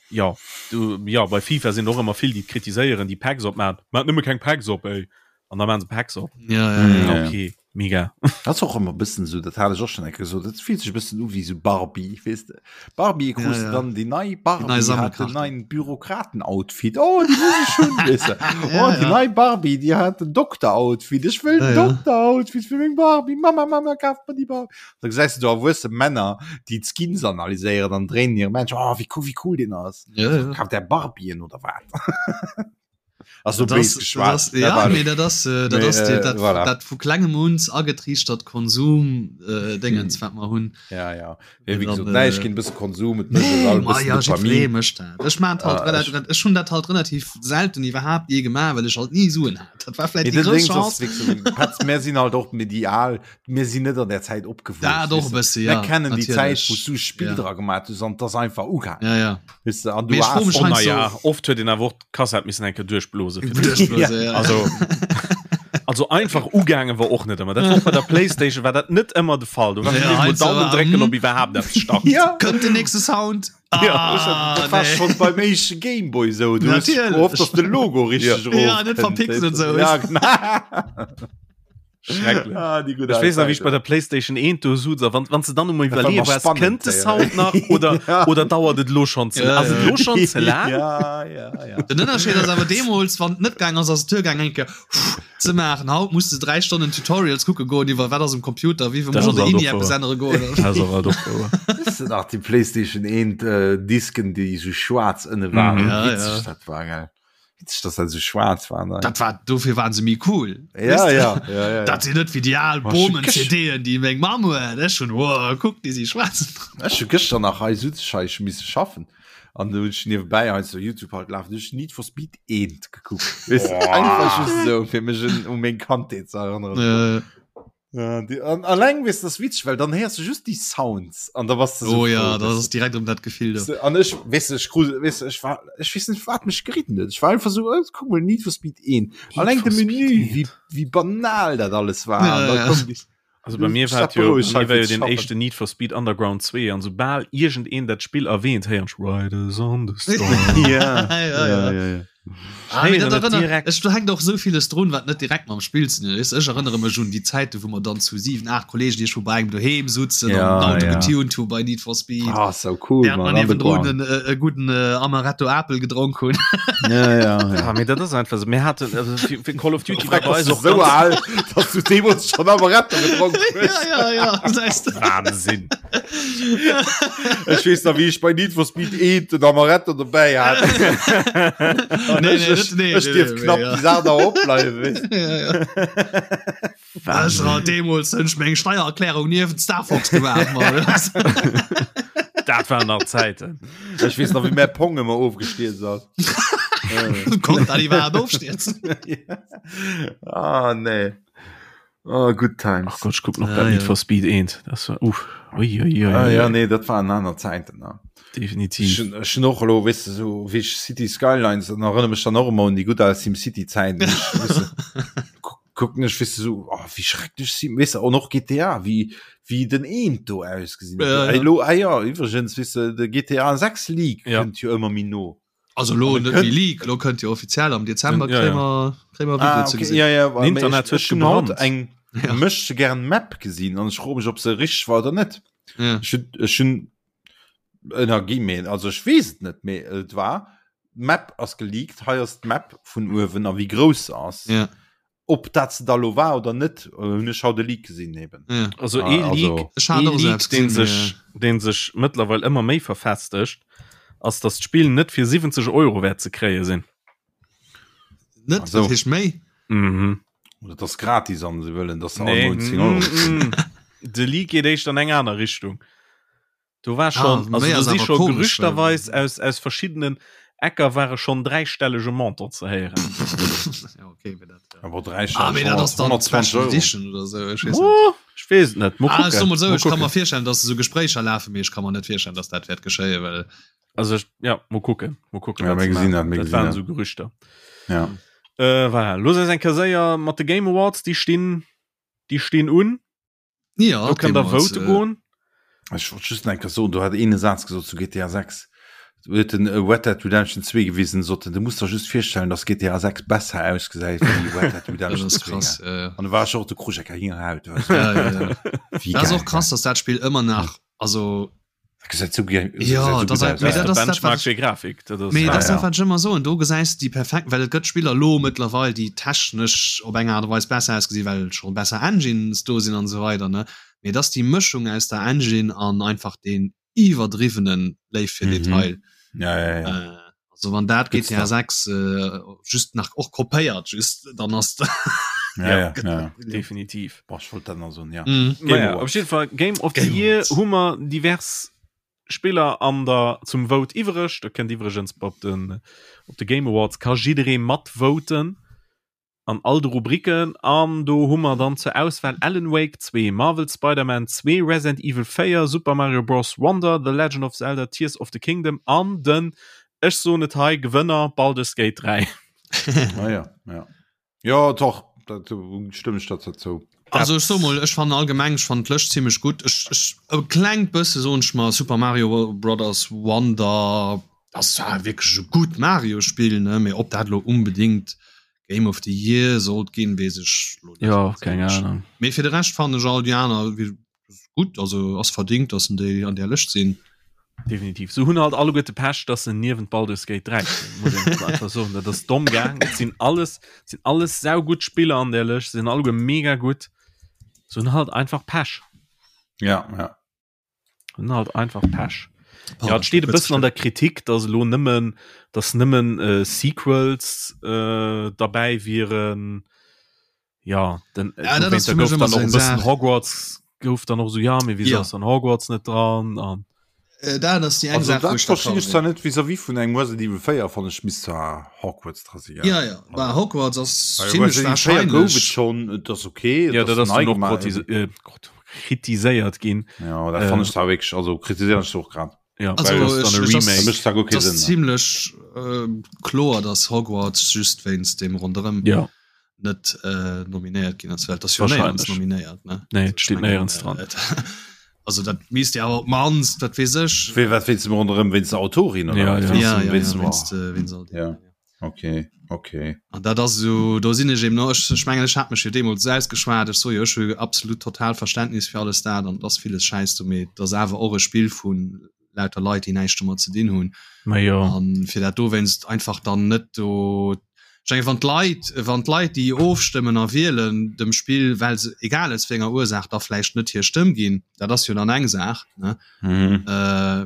ja, du, ja, bei FIFA sinn och ëmmer vill déi kritiséieren, déi Packs opmachen. Maat nëmme keng Packs op, ey. An da maachen se Packs op. Ja, ja, ja. Ja. Okay, mega. Dat ass och ëmmer e bëssen esou, dat hat ech och schonn eng Kéier gesot, dat fillt sech e bëssen u wéi esou Barbie, weess de. Barbie krus Ja, de ja. dann déi nei Barbie Déi nei hat den Sammelkarte. neien Bürokraten-Outfit, oh déi muss ech hunn, weess de. Ja, Oh déi ja. nei Barbie, déi hat den Dokter-Outfit, ech wëll Ja, den ja. Dokter-Outfit fir meng Barbie, Mama, Mama, kaf mer déi Barbie. Da gesäis de do erwuesse Männer, déi d'Skins analyséieren an dréinen hire Männchen, oh wéi cool, wéi cool deen ass. Ja, ja. Kaf där Barbien oder wat? Also Das, bés geschwat. das, ja, nee, dat ass, äh, dat Mee, ass die, äh, dat, voilà. dat vu klengem uns agetriichtert Konsum äh, Dingens, wat mer hunn. Ja, ja. Nee, wéi Dann, gesot, nee, ech äh, ginn e bësse Konsum, et mécht Nee, all ma bëssen ja, jiddweree Dopamin. mécht dat. Ech maan halt Ah, relativ, ech- ech hunn dat halt relativ selten iwwerhaapt je gemaach, well ech halt ni Suen hat. Dat war vläicht Nee, déi den grouss Dings ass Chance. wierklech so, Petz, mir sinn halt och medial, mir sinn net an der Zäit opgewuess. Dat och weess e de. bësse, Mir ja, kennen déi Zäit, natierlech. wou s du Spill Ja. dra gemaach hues an 't ass einfach ugaangen. Ja, ja. Weess de, an du Mee ech fro has mech Oh, na heiansdo- ja, oft huet een awer och d'Kassett missen eng Kéier duerchblose fir dat. Duerchblose, ja. Also, also einfach ugaange war och net ëmmer. Dat war och bei der Playstation war dat net ëmmer de Fall. Du warst Ja, ja, heiansdo Daumen war- drécken, hm. ob iwwerhaapt eppes start. Ja. Kënnt den nächste Sound? Ah, dat war nee. schon beim éischte Gameboy sou. Du hues Natierlech. gehofft, dass de Logo richtig Ja. Ja, net verpixelt sou. Ja, genau. Schrecklech. Ah, déi gutt Ech weess nach, al wéi ech bei der Playstation 1 do suz a wann, wann se dann emol Dat war iwwerleeë nach waars, spannend, kënnt de ja. Sound nach oder, Ja. oder dauert et lo schon ze, Ja, ass et ja. lo schon ze laang? Ja, ja, ja. Den Ënnerscheed ass awer deemools, wann et net gaang ass, ass et duergaang eng Kéier ze maachen. Haut muss de 3 Stonnen Tutorials kucke goen iwwer wat ass um Computer, wéi Dat muss ass an der alt INI och eppes wouer. ännere goen. Dat ass och alt och wouer. Weess de nach déi Playstation 1 äh, Disken, déi sou schwaarz ënne waren? Mhm. Ja, Witzeg ja. dat war, gell? Witzeg, dass dat sou schwaarz war. Ne? Dat war dofir waren se méi cool. Ja, ja, ja, ja, Dat sinn net wéi déi al Oh, Bomen ech- CDen, déi meng Mamm huet. Ech hunn oh, kuck, déi si schwaarz. Ech hu gëschter nach hei sutz ech hei ech misse schaffen an du hunn ech niewebäi hei so Youtube halt lafen, du hunn ech Need for Speed 1 gekuckt. Weess de, einfach just sou fir mech un u meng Kandheet ze erënneren. Äh, Ja, die, an, alleng weess das witzeg, well dann héiers du just déi Sounds an da bass du so oh ja, froh, dat weess ass direkt ëm dat Gefill do. du. An ech weess du, ech krus weess du, ech war ech weess net wat mech geritten huet. Ech war einfach so oh, kuck mol Need for Speed 1. Alleng de for Speed Menü, 1. wéi wéi banal dat alles war. Ja, An da ja. koum déi Also bei mir war Statt jo, berouegt bei hei mir war jo fir ze den schaffen. éischten Need for Speed Underground 2 an soubal iergendeen dat Spill erwähnt, héieren ech Riders on the Storm. Ja, Ja, ja. ja, ja. Ah, mee dat erënnert, ech, do hänkt och esou villes drun, wat net direkt mam Spill ze dinn huet. Ech erënnere mech un déi Zäiten, wou mer dann zu 7, 8 Kollegen iergendwou bei engem doheem sutzen an Ja, den Auto ja. getuned hu bei Need for Speed. Ah, so cool, Während man, mer niewendrun Underground. en, e gudden äh, Amaretto Apel gedronk hunn. Ja, ja, ja. Ah, mee dat ass einfach so. Mir haten, also fir, fir Call of Duty war Freck, bei bass eis du och so ganz al, dass du deemools schon Amaretto gedronk hues. ja, ja, ja. Das heißt, Wahnsinn. Ech weess nach, wéi ech bei Need for Speed 1 den Amaretto dobäi hat. An Nee, ech, nee, ech, net- nee, ech nee, dierf nee, knapp ja. déi Saach nach opbleiwen, weess. ja, ja. Ech hat deemools hunn ech meng Steiererklärung niewent Star Fox gemaach, Mann. Dat waren nach Zäiten. Ech weess nach, wéi mäi Pong ëmmer ofgestierzt ass. Konnt dat iwwerhaapt ofstierzen? Ah, nee. Oh, good times. Ach Gott, ich guck noch Ah, grad Need ja. for Speed 1. Das war, uff. Ui, ui, ui, Ah, ui. ja, nee, dat waren aner Zäiten. Ne? Definitiv. Ech ech hun och elo, weess de, so wéi ech City Skylines, dann erënnere mech dann och ëmmer un déi gutt al SimCity-Zäiten. Ech, weess de, kuck- kucken ech, weess de, so, oh, wéi schrecklech Sim, weess de, an och GTA, wéi, wéi den Eent do ausgesinn huet. Ja, ja. Ey, lo, ah ja, iwwregens, weess de, de GTA 6 Leak Ja. kënnt jo ëmmer méi no. Also lo An net kënnt- méi Leak, lo kënnt jo offiziell am Dezember Ja, ja. kréie mer kréie mer Video Ah, ze okay, gesinn. ja, ja, Den Internet ech, huet ech hun haut gebrannt. eng Ja. möchte gern Map gesinn an ech froe mech, ob se richteg war oder net. Ja. Ech hun, ech hun Energie méi, also ech weess et net, mee et war d'Map ass geleakt, hei ass d'Map vun uewen a wéi grouss se ass. Ja. Ob dat se da lo war oder net, hunn ech haut e Leak gesinn eben. Ja. Also Ah, ee also- Leak, Ech hat ee och Leak selbst deen gesinn, sech, deen sech mëttlerweil ëmmer méi verfestegt, ass, datt d'Spill net fir 70 Euro wäert ze kréie sinn. Net, Also. dat heescht méi. Mhm. Oder dat ass gratis an se wëllen, dass se Nee, all Mount 10 Euro. mm, mm. De Leak geet éischter an eng aner Richtung. Do war schon, Ah, also méi do ass si awer scho komesch, gerüchterweis aus, aus verschiddenen Ecker ware schonn dräistellege Montant ze héieren. ja, okay, mee dat, ja. Awer dräistelleg, Ah, mee dat ass dann 120 Special Euro. Edition oder sou, ech weess net. Oh, ech weess et net. Mol Ah, ech kucken. soe mol sou, Mol ech ka mer kucken. virstellen, dass esou Gespréicher lafen, mee ech ka mer net virstellen, dass dat wäert geschéien, well Also ech, ja, mol kucken. Mol kucken, Ja, wat mir se gesinn maachen. dat, mir Dat gesinn waren dat. esou Gerüchter. Ja. Äh, voilà. Looss eis eng Kéier séier mat de Game Awards, déi stinn, déi stinn un. Ja, Do kënnt der deemools, vote äh, goen. Ech wollt just eng Kéier soen, do hat een e Saz gesot zu GTA 6. Do huet den Red Dead Redemption 2 gewisen, sot en, du muss der just virstellen, dass GTA 6 besser ausgesäit wéi Red Dead Dat Redemption ass 2. krass. Ja, ja. An do war ech och, do krut ech eng Gänsehaut. weißt du. Ja, ja, ja. Wéi Dat ass geil, och krass, dass dat Spill ëmmer nach, also Dat gesäit sou ge- Ja, gesäit sou dat gutt ass- aus, mee ja. dat ass dat, Benchmark wat ech- fir Grafik. Dat ass, Mee Ja, dat ass ja. dat, wat ech ëmmer soen, do gesäis de déi perfekt, well et gëtt Spiller lo mëttlerweil, déi technesch op eng Aart a Weis besser ausgesinn, well scho besser Engines do sinn an esou weider, ne? Mee et ass déi Mëschung aus der Engine an einfach deen iwwerdriwwene Léif fir Mhm. Detail. Ja, ja, ja. Äh, also wann dat Good GTA stuff. 6 äh, just nach och kopéiert, just dann ass Ja, ja, ja. definitiv. Boah, ech wollt dat nach soen, ja. Mhm. Game Naja, Awards. op jeden Fall Game of the Game Year Awards. hu mer divers Spiller an der zum Vote iwwereg. Da kënnt iwwregens op den op de Game Awards ka jidderee matvoten an all de Rubriken. An do hu mer dann zur Auswahl Alan Wake 2, Marvel Spider-Man 2, Resident Evil 4, Super Mario Bros. Wonder, The Legend of Zelda Tears of the Kingdom an den, ech soen et hei, Gewënner Baldur's Gate 3. Ah, ja, ja. Ja, doch, dat stëmme ech der zou. Also ech so mol, ech fannen allgemeng, ech fannen d'Lëscht zimmlech gutt. Ech, ech, e klengt bësse soen ech mer Super Mario Brothers Wonder ass zwar wierklech e gutt Mario-Spill, ne, mee ob dat elo unbedingt Game of the Year sollt ginn, weess ech elo net. Ja, keng Ahnung. Mee fir de Rescht fannen ech all déi aner gutt, also ass verdingt, dass en déi an där Lëscht sinn. Definitiv. Se hunn halt alleguerte Pech, dass se niewent Baldur's Gate 3 stinn, muss een einfach einfach soen. Dat ass domm gaang. Et sinn alles, et sinn alles saugutt Spiller an där Lëscht, se sinn alleguer mega gutt. Se hunn halt einfach Pech. Ja, ja. Hunn halt einfach Pech. Ja, et steet e bëssen an der Kritik, dass elo nëmmen, dass nëmmen äh, Sequels äh, derbäi wieren. Ja, den, Ja, dat ass da fir mech gouf ëmmer dann sou och e eng bëssen Saach. Hogwarts gouf dann och so ja, mee wieso Ja. ass dann Hogwarts net dran an Äh, dat ass déi eng Also Saach, wou dat ech d'accord verstinn ech sinn. zwar net vis-à-vis vun engem Resident Evil 4 fannen ech misst zwar Hogwarts dra sinn, Ja, ja, bah, Hogwarts ass Well zimmlech Resident Evil 4 gouf et wahrscheinlech. schonn, et ass okay, et ja, dat ass nei dann och gemaach. krotise- äh, krot- kritiséiert ginn. Ja, dat fannen Äh, ech zwar wierklech, also kritiséieren ech se och grad. Ja, Also, well das ech- dann e ech ass- Dat Remake. mécht zwar guer Et kee ass Sënn. ne? zimmlech äh, kloer, dass Hogwarts just wéinst dem ronderëm Ja. net äh, nominéiert ginn ass, well et ass jo néierens Wahrscheinlech. nominéiert, ne? Nee, Also, et steet ech mengen, néierens dran. äh, et- Also dat misst ja awer op d'mannst, wat weess ech. Wéi, wat wéinst dem ronderëm, wéinst der Autorin oder Ja, wat? ja. Wéinst Ja, dem- ja, wéinst ja, dem- wéinst, äh, wéinst all deem, Ja. ja. Okay, okay. An dat ass esou, do sinn ech eben och, ech, ech mengen, ech hat mech jo deemools esou ausgeschwat, ech soe jo, ech hu absolut total Verständnis fir alles dat an et ass villes Schäiss do, mee et ass awer och e Spill vu lauter Leit, déi näischt domat ze dinn hunn. Ma jo. An fir dat dowéinst einfach dann net do, ech mengen, wann d'Leit, wann d'Leit, déi ofstëmmen a wielen, dem Spill, well se, egal aus wéi enger Ursaach, da vläicht net hir Stëmm ginn, dat ass jo dann eng Saach, ne? Mhm. Äh,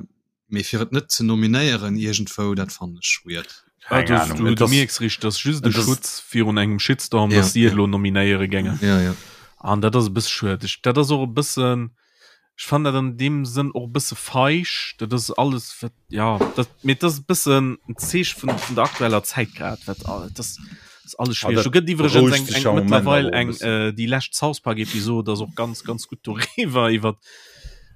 Mee fir et net ze nominéieren iergendwou, dat fannen ech weird. Ah, du, Ahnung, du, et du ass- mierks richteg, dat ass just de et ass- Schutz virun engem Shitstorm, Ja, dass si et ja. elo nominéiere géingen. Ja, ja. An dat ass e bësse schued. Ech, dat ass och e bëssen, ech fannen dat an deem Sënn och e bësse feig. Dat ass alles, wat, ja, dat, mee dat ass e bëssen en Zeeche vun, vun der aktueller Zäit grad, wat, al- dat ass, ass alles Ah, schwiereg. dat Do gëtt iwwregens berouegt eng, sech eng am Moment mëttlerweil awer och e eng, bëssen. äh, déi lescht South Park Episod ass och ganz, ganz gutt doriwwer, iwwer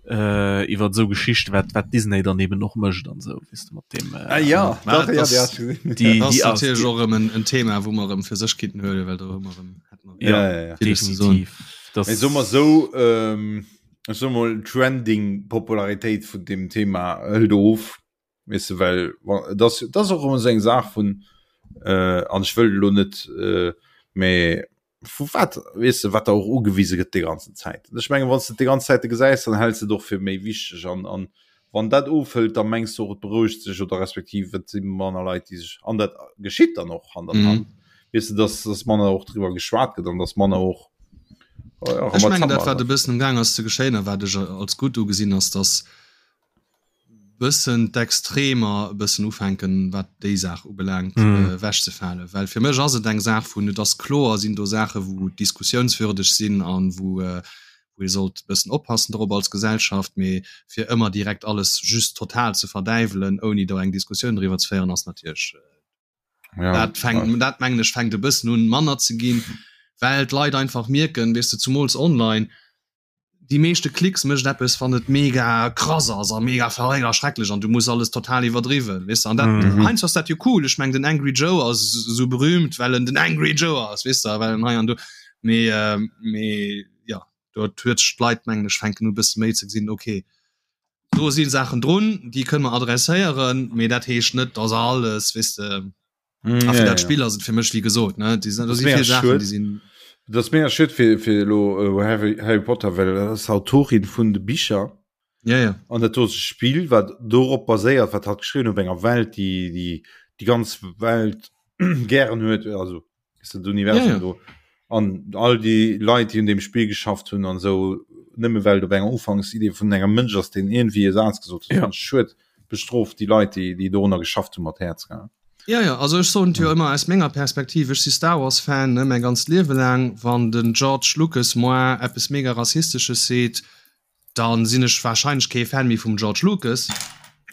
äh, iwwer sou Geschichte wat wat Disney dann eben och mécht an sou weess de mat dem äh, Ah, ja, Ma, doch, ja, das- die hast du gesehen. die, Das die ass ass natierlech och erëm en, en Thema, wou mer erëm fir sech kinnten huelen, well do hu mer erëm hätte mer ja, Ja, ja, ja. villes ze soen. definitiv das Ech so mal so ähm, ech so mal Trending Popularitéit vun dem Thema hëlt of weess de, well wa- das das ass och ëmmer sou eng Saach vun äh, an ech wëll elo net äh, mä vu wat weess de wat der och ugewise gëtt déi ganzen Zäit. Ech mengen wann s de et déi ganz Zäite gesäis, dann häls de et och fir méi wichteg an an wann dat ofhëlt, da mengs de och et berouegt sech oder respektiv et si manner Leit déi sech an dat geschitt dann och Hand an Mhm. Hand weess de, dass dass manner och driwwer geschwat gëtt an dass manner och oh ja, Ech mengen dat Rambazamba wat e bëssen am Gaang ass ze geschéien a wat ech als gutt ugesinn ass, dass bëssen d'Extremer e bëssen ufänken, wat déi Saach ubelaangt, mm. ewechzefalen. Well fir mech ass et eng Saach vun, et ass kloer, sinn do Saache wou diskussiounswürdeg sinn an wou, äh, wou ee sollt e bëssen oppassen drop als Gesellschaft, mee fir ëmmer direkt alles just total ze verdäiwelen, ouni do eng Diskussioun driwwer ze féieren, ass natierlech äh, ja, dat fänkt, ja. dat mengen ech fänkt e bëssen un manner ze ginn, well d'Leit einfach mierken, weess de, zumools online, déi meeschte Klicks mécht eppes wann et mega krass ass a mega verréckt a schrecklech an du muss alles total iwwerdriwwen weess de an dat Mhm. heiansdo ass dat jo cool ech meng den Angry Joe ass esou berühmt well en den Angry Joe ass weess de well en hei an do mee mee jo do huet sech d'Leit mengen ech fänken u bësse méi ze gesinn okay do si Saachen drun déi kënne mer adresséieren mee dat heescht net dass alles weess de Mm, A fir ja, dat ja. Spill ass et fir mech wéi gesot ne déi sinn do Das si mega vill Saachen schued. déi sinn Das ass mega schued fir fir elo äh, Harry, Harry Potter, well dat ass Autorin vun de Bicher ja ja an dat do ass e Spill wat dorop baséiert, wat hatt geschriwwen huet op enger Welt, déi déi déi ganz Welt gären huet, also ist dat Universum Ja, ja. do. An all déi Leit, déi un deem Spill geschafft hunn an esou, nëmme well et op enger Ufanksidee vun engem Mënsch ass, deen iergendwéi e Saz gesot huet, Ja. fand ech schued. Bestrooft déi Leit, déi, déi dorunner geschafft hunn, mat Häerz, gell? Ja, ja, also ech soen et jo ëmmer aus menger Perspektiv, ech si Star Wars Fan, ne, mäi ganzt Liewe laang, wann den George Lucas moi eppes mega rassistesches seet, dann sinn ech wahrscheinlech kee Fan méi vum George Lucas,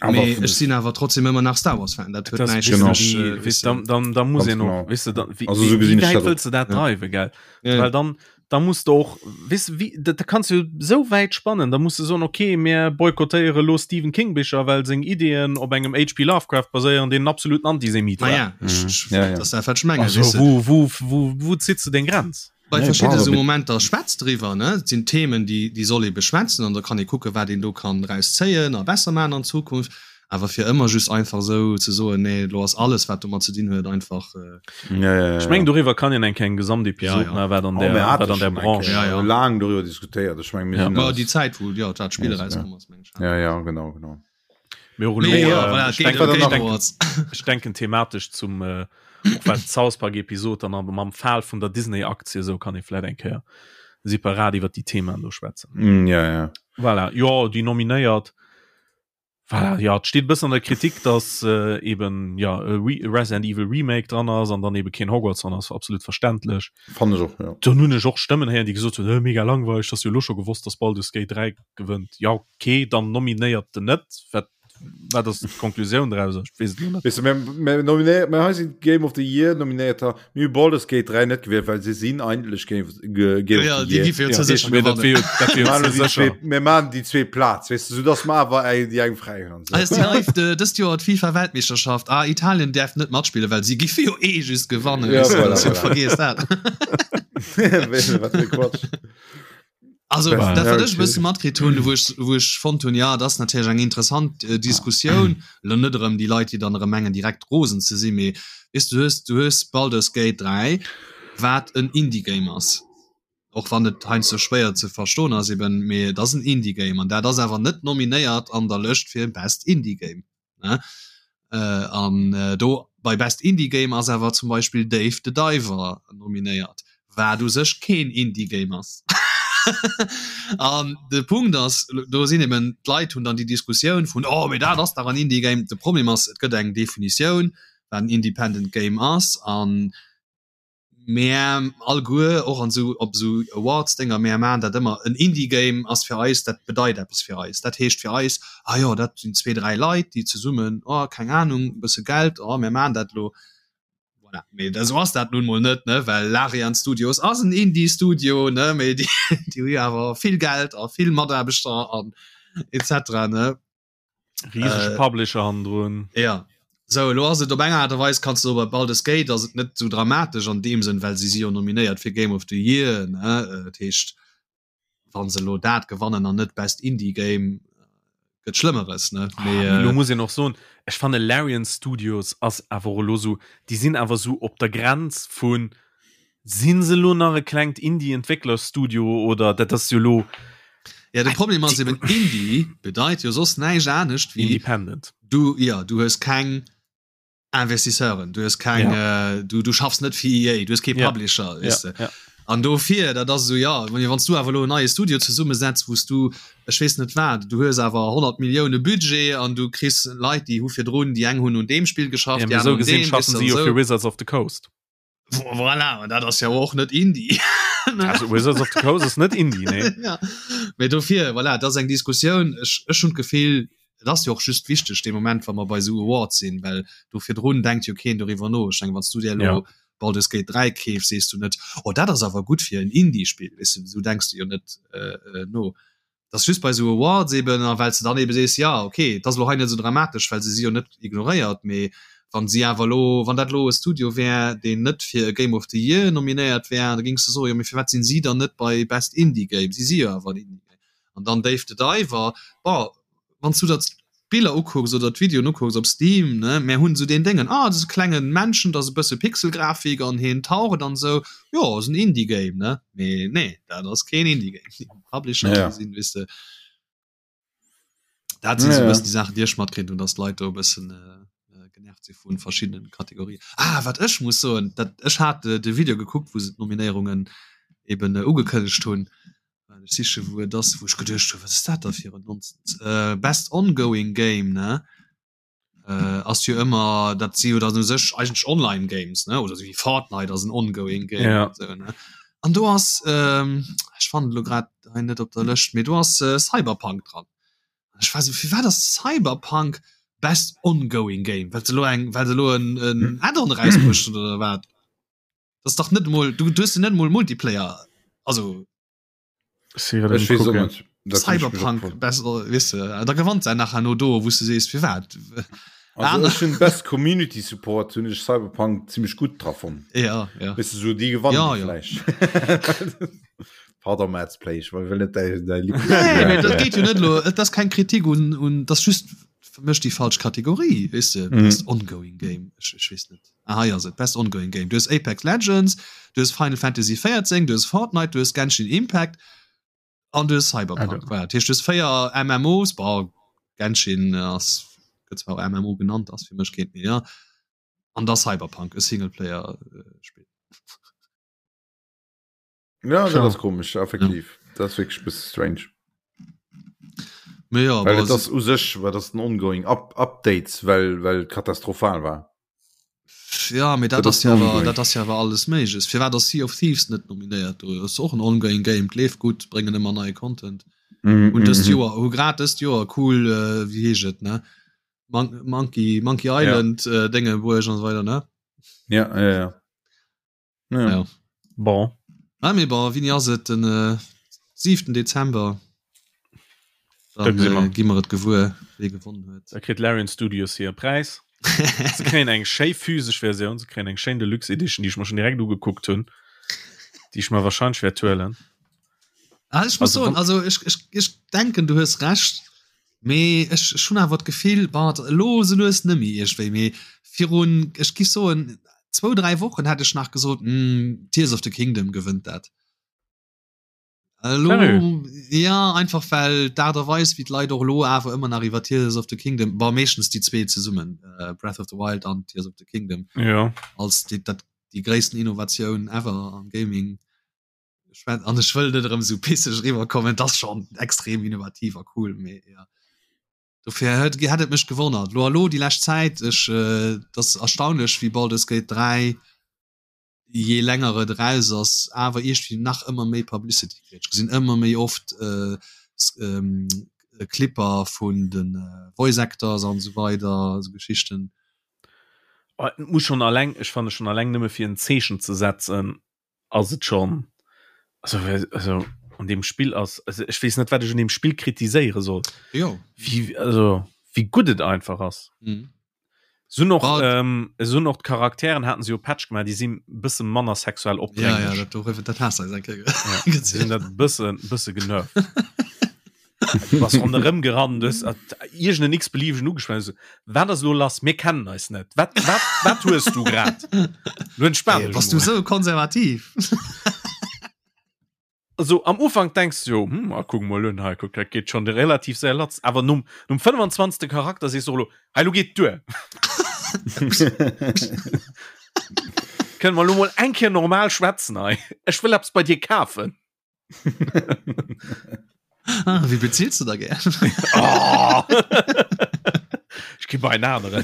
Awer mee vun ech sinn awer trotzdem ëmmer nach Star Wars Fan, dat huet Das näischt genau. mech, Wie, äh, weess, dann, dann, dann muss Ganz een och, genau. weess de, dann, wie, Also, sou wie, gesinn wie ech wäit dat och. wëlls de dat Ja. dreiwen, gell? Ja, ja. Well dann, da muss du och weess de, wie da, da kanns du sou wäit spannen, da muss du soen okay mir boykottéiere lo Stephen King Bicher, well seng Ideeën op engem HP Lovecraft baséieren, deen en absoluten Antisemit war. Ma ja, ech, ech, Ja, ja. dat ass dat wat ech mengen, Also weess de. wou, wou, wou, wou zitt se deng Grenz? Bei Nee, verschidde bravo, sou mit- Momenter schwätzt driwwer, ne? Et sinn Themen, déi, déi soll ee beschwätzen an da kann ee kucken, wat een do kann draus zéien a besser maachen an Zukunft. Awer fir ëmmer just einfach esou ze soen, nee, elo ass alles, wat domat ze dinn huet, einfach. Ja, ja, ja. Ech mengen doriwwer kann een eng kleng Gesamtepisod Ja, ja. maachen, wat an Oh, der, mir hate wat an der schon eng Branche. Kéier Ja, ja. laang doriwwer diskutéiert. Ech meng, mir Ja. sinn Ma alles- déi Zäit, wou jo dat Spill Ja, ja. erauskomm ass, meng ech. Ja, ja, genau, genau. Mee och elo, Mee jo, äh, voilà, ech Game, denken, Game ech denken, Awards. ech denken thematesch zum äh, och wat d'South Park Episod dann aber mam Fall vun der Disney Aktie esou kann ee vläit eng Kéier separat iwwer déi Themaen do schwätzen. Mm, ja, ja. Voilà, jo, déi nominéiert. Voilà, ja, et steet e bëssen an der Kritik, dass äh, eben ja, e Re Resident Evil Remake dran ass an dann eben keen Hogwarts dran ass, absolut verständlech. Fand ech och, ja. Dann hunn ech och Stëmmen héieren, déi gesot hunn, äh, mega langweileg, dass jo lo scho gewosst, dass Baldur's Gate 3 gewënnt. Ja, okay, dann nominéiert den net. Wat, wat ass d'Konklusioun draus? Ech weess et lo net. Weess de, mir, mir nominéiert, mir hei sinn Game of the Year nominéierter, mir hu Baldur's Gate 3 net gewielt, well se sinn eigentlech Game of, Ge- Game Ja, of the déi Year. gi fir Ja, ze sécher mee dat gewannen. wier jo, dat wier jo Mir ze maachen déi sécher. zwee, mir maachen déi zwee Plaz, weess de, soudass mer awer eng, déi eng fräi hunn an Ah, esou. déi live de, dëst Joer d'FIFA Weltmeeschterschaft. Ah, Italien däerf net matspillen, well si giffe jo eh just gewannen. Ja, Weess de, voilà, dat voilà. vergiess dat. Wat fir Quatsch. Also dat wat ech e bësse matkritt hunn, wou ech wou ech fonnt hunn, ja dat ass natierlech eng interessant äh, Diskussioun, lo net erëm déi Leit, déi dann erëm mengen direkt rosen ze sinn, mee weess du hues du hues Baldur's Gate 3, wat en Indie-Game ass, och wann et heiansdo schwéier ze verstoen ass eben, mee et ass en Indie-Game an dat ass awer net nominéiert an der Lëscht fir Best Indie-Game. Ne? Äh, an äh, do bei Best Indie Game ass awer zum Beispill Dave the Diver nominéiert, wat u sech keen Indie Game ass. An de Punkt ass, do sinn eben d'Leit hunn dann déi Diskussioun vun oh mee dat ass dach en Indie Game. De Problem ass, et gëtt eng Definitioun, wat en Independent Game ass an Mär alleguer, och an esou op esou Awards-Dénger, mär maachen dat ëmmer, en Indie-Game ass fir eis, dat bedeit eppes fir eis. Dat heescht fir eis, ah jo, dat sinn zwee, dräi Leit, déi zesummen, oh, keng Anung, e bësse Geld, oh, mär maachen dat elo. Voilà. Mee esou ass dat nun emol net, ne, well Larian Studios ass en Indie-Studio, ne, mee déi, déi hu jo awer vill Geld a vill Mataarbechter an et cetera, ne. Riesege äh, Publisher hannendrun. Ja. So, lo ass et op eng Art a Weis kannst du bei Baldur's Gate ass et net so dramatesch an deem Sënn, well si si jo nominéiert fir Game of the Year ne äh, dat heescht wann se lo dat gewannen an net Best Indie Game gëtt Schlëmmeres ne ah, Mee, äh, lo muss een och soen ech fanne Larian Studios ass awer lo so déi sinn awer so op der Grenz vun Sinn se lo nach e klengt Indie-Entwécklerstudio oder dat ass jo lo. Ja de Problem ass eben Indie bedeit jo soss näischt anescht wéi Independent. Du ja du hues keng Investisseuren, du hues keng ja. äh, du, du schaffs net fir EA, du hues kee Publisher ja. Weißt ja. du. Ja. An dofir dat ass esou ja wann du awer lo en neie Studio zesummesetz wous du ech weess net wat du hues awer 100 Millioune Budget an du kriss Leit déi hu virdrun déi eng hunn un deem Spill geschafft, ja, déi aner un deem, schaffen si jo fir Wizards of the Coast. Voilà, dat ass ja och net Indie. Also Wizards of the Coast ass net Indie, nee. ja. Mee dofir, voilà, dat ass eng Diskussioun. Ech, ech hunn d'Gefill, et ass jo och just wichteg dee Moment, wa mer bei esou Awards sinn, well do virdrun denkt jo keen doriwwer no. Ech mengen, wann s du dir elo ja. Baldur's Gate 3 keefs, sees du net, oh dat ass awer gutt fir en Indie-Spill, weess du, esou denks du jo net äh, äh, no. Dat ass just bei esou Awards eben, a well s de dann ebe sees, jo okay, et ass elo hei net esou dramatesch, well se si jo net ignoréiert, mee wann si awer elo, wann dat elo e Studio wär, deen net fir e Game of the Year nominéiert wär, da géings de soen, jo mee firwat sinn si dann net bei Best Indie Game, si si jo awer en Indie Game. An dann Dave the Diver, bon, wann s du der d'Biller ukucks oder d'Videoen ukucks op Steam, ne, mär hunn esou deen Déngen, ah, dat ass e klengen Männchen, dat ass e bësse Pixelgrafik an hien taucht an esou, jo, ass en Indie-Game, ne? Mee nee, dat ass keen Indie-Game. Déi Publisher, ja. sinn, weess de, dat sinn esou e bëssen déi Saachen, déi ech matkritt hunn, dass d'Leit do e bëssen genervt si vu verschiddenen Kategorien. Ah, wat ech muss soen, dat, ech hat de Video gekuckt, wou se d'Nominéierungen eben ugekënnegt hunn, Ech siche wou et ass, wou ech geduecht hunn, wat ass dat da fir en Nonsens? Äh, Best Ongoing Game, ne? Äh, ass jo ëmmer, dat si jo dann u sech eigentlech Online Games, ne? Oder sou wéi Fortnite ass en Ongoing Game Ja. an sou, ne? An do ass, ähm, ech fannen et elo grad hei net op der Lëscht, mee do ass äh, Cyberpunk dran. An ech war sou, firwat ass Cyberpunk Best Ongoing Game? Well se elo eng, well se elo en, en Add-on erausbruecht hunn oder wat? Das ist doch net mol du du hast net mol Multiplayer also Cyberpunk besser wisse da gewannt se nachher no do wusste se fir wat best Community Support hun ich Cyberpunk ziemlich gut drauf ja, ja. Weißt du, so die gewann ja, ja. Pardon Mads Play ich will net däi däi Nee, nee, dat geet jo net lo et ass keng Kritik un un das just fir mech déi falsch Kategorie weess de mm. best ongoing game ech, ech weess net ah, hei ass et best ongoing game du hues Apex Legends du hues Final Fantasy 14 du hues Fortnite du hues Genshin Impact an du hues Cyberpunk ah, voilà. dat heescht du hues véier MMOs bon Genshin ass gëtt zwar och MMO genannt ass fir mech keent méi ja an da Cyberpunk e Singleplayer äh, Spill Ja, dat ass komisch effektiv ja. dat ass wierklech bësse strange. Mee ja, well et ass u sech war das den ongoing Up Updates well well katastrophal war. Ja mee dat ass ja awer dat ass ja awer alles méigles. Firwat ass Sea of Thieves net nominéiert do? Ass och en ongoing Game, leeft gutt, bréngen ëmmer neie Content. Mm, Un dëst mm, Joer hu grad dëst Joer cool äh, wéi heescht et ne? Mon Monkey Monkey Island ja. äh, Dénge bruecht an esou weider ne? Ja, ja, ja. Ja. ja. Bon. Ah, mee bon, wéini ass et? Den äh, 7. Dezember. Dann äh, gi mer et gewuer, wee gewonnen huet. Da kritt Larian Studios hir Präis. Se kréien eng schéi physesch Versioun, se kréien eng schéin Deluxe Edition, déi ech mer schon direkt ugekuckt hunn, déi ech mer wahrscheinlech wäert huelen. Ah, ech muss soen, also ech, ech, ech denken du hues Recht, mee ech, ech hunn awer d'Gefill, bon, elo sou lues nëmmi iergendwéi, mee virun, ech giff soen, zwou, dräi Wochen hätt ech nach gesot, hm, Tears of the Kingdom gewënnt dat. Elo, ja, einfach well d'Aart a Weis wéi d'Leit och elo awer ëmmer nach iwwer Tears of the Kingdom, bon, meeschtens déi zwee zesummen, Breath of the Wild an Tears of the Kingdom, ja. als déi, dat, déi gréissten Innovatioun ever am Gaming Ech an ech wëll net erëm sou pisseg eriwwer kommen, et ass schonn extrem innovativ a cool, mee ja. Dofir hätt hätt et mech gewonnert. Lo elo déi lescht Zäit, ech äh, et ass erstaunlech wéi Baldur's Gate 3 je länger et eraus ass, awer iergendwéi nach ëmmer méi Publicity kritt. Ech gesinn ëmmer méi oft äh, ähm, Clipper vun de Voice Actors an esou weider, esou Geschichten. Oh, et muss schonn alleng, ech fanne schonn alleng nëmme fir en Zeechen ze setzen, ass et schon also, also an dem Spill ass also ech weess net wat ech un dem Spill kritiséiere soll jo wie also wie gutt et einfach ass mhm. so noch ähm, so noch d'Charakteren hatten se jo Patch gemaach déi sinn bësse manner sexuell ja, ja, dat, dat, dat hast du ja, sinn dat bësse bësse genervt was ronderëm gerannt hues iergend en x-beliebigen ugeschwat hues, wat ass elo lass, mir kennen eis net, wat, wat, wat hues du grad? Lo entspan dech Bass du sou konservativ? Also am Ufank denkst du jo, hm, ah, kuck mol un hei, kuck, dat geet schon relativ séier latz, awer nom, nom 25. Charakter sees du och elo, hei, lo geet duer. Kënne mer lo mol eng Kéier normal schwätzen hei? Ech wëll eppes bei dir kafen. ah, wie bezielst du da gern? oh. Ich geh bei einen anderen.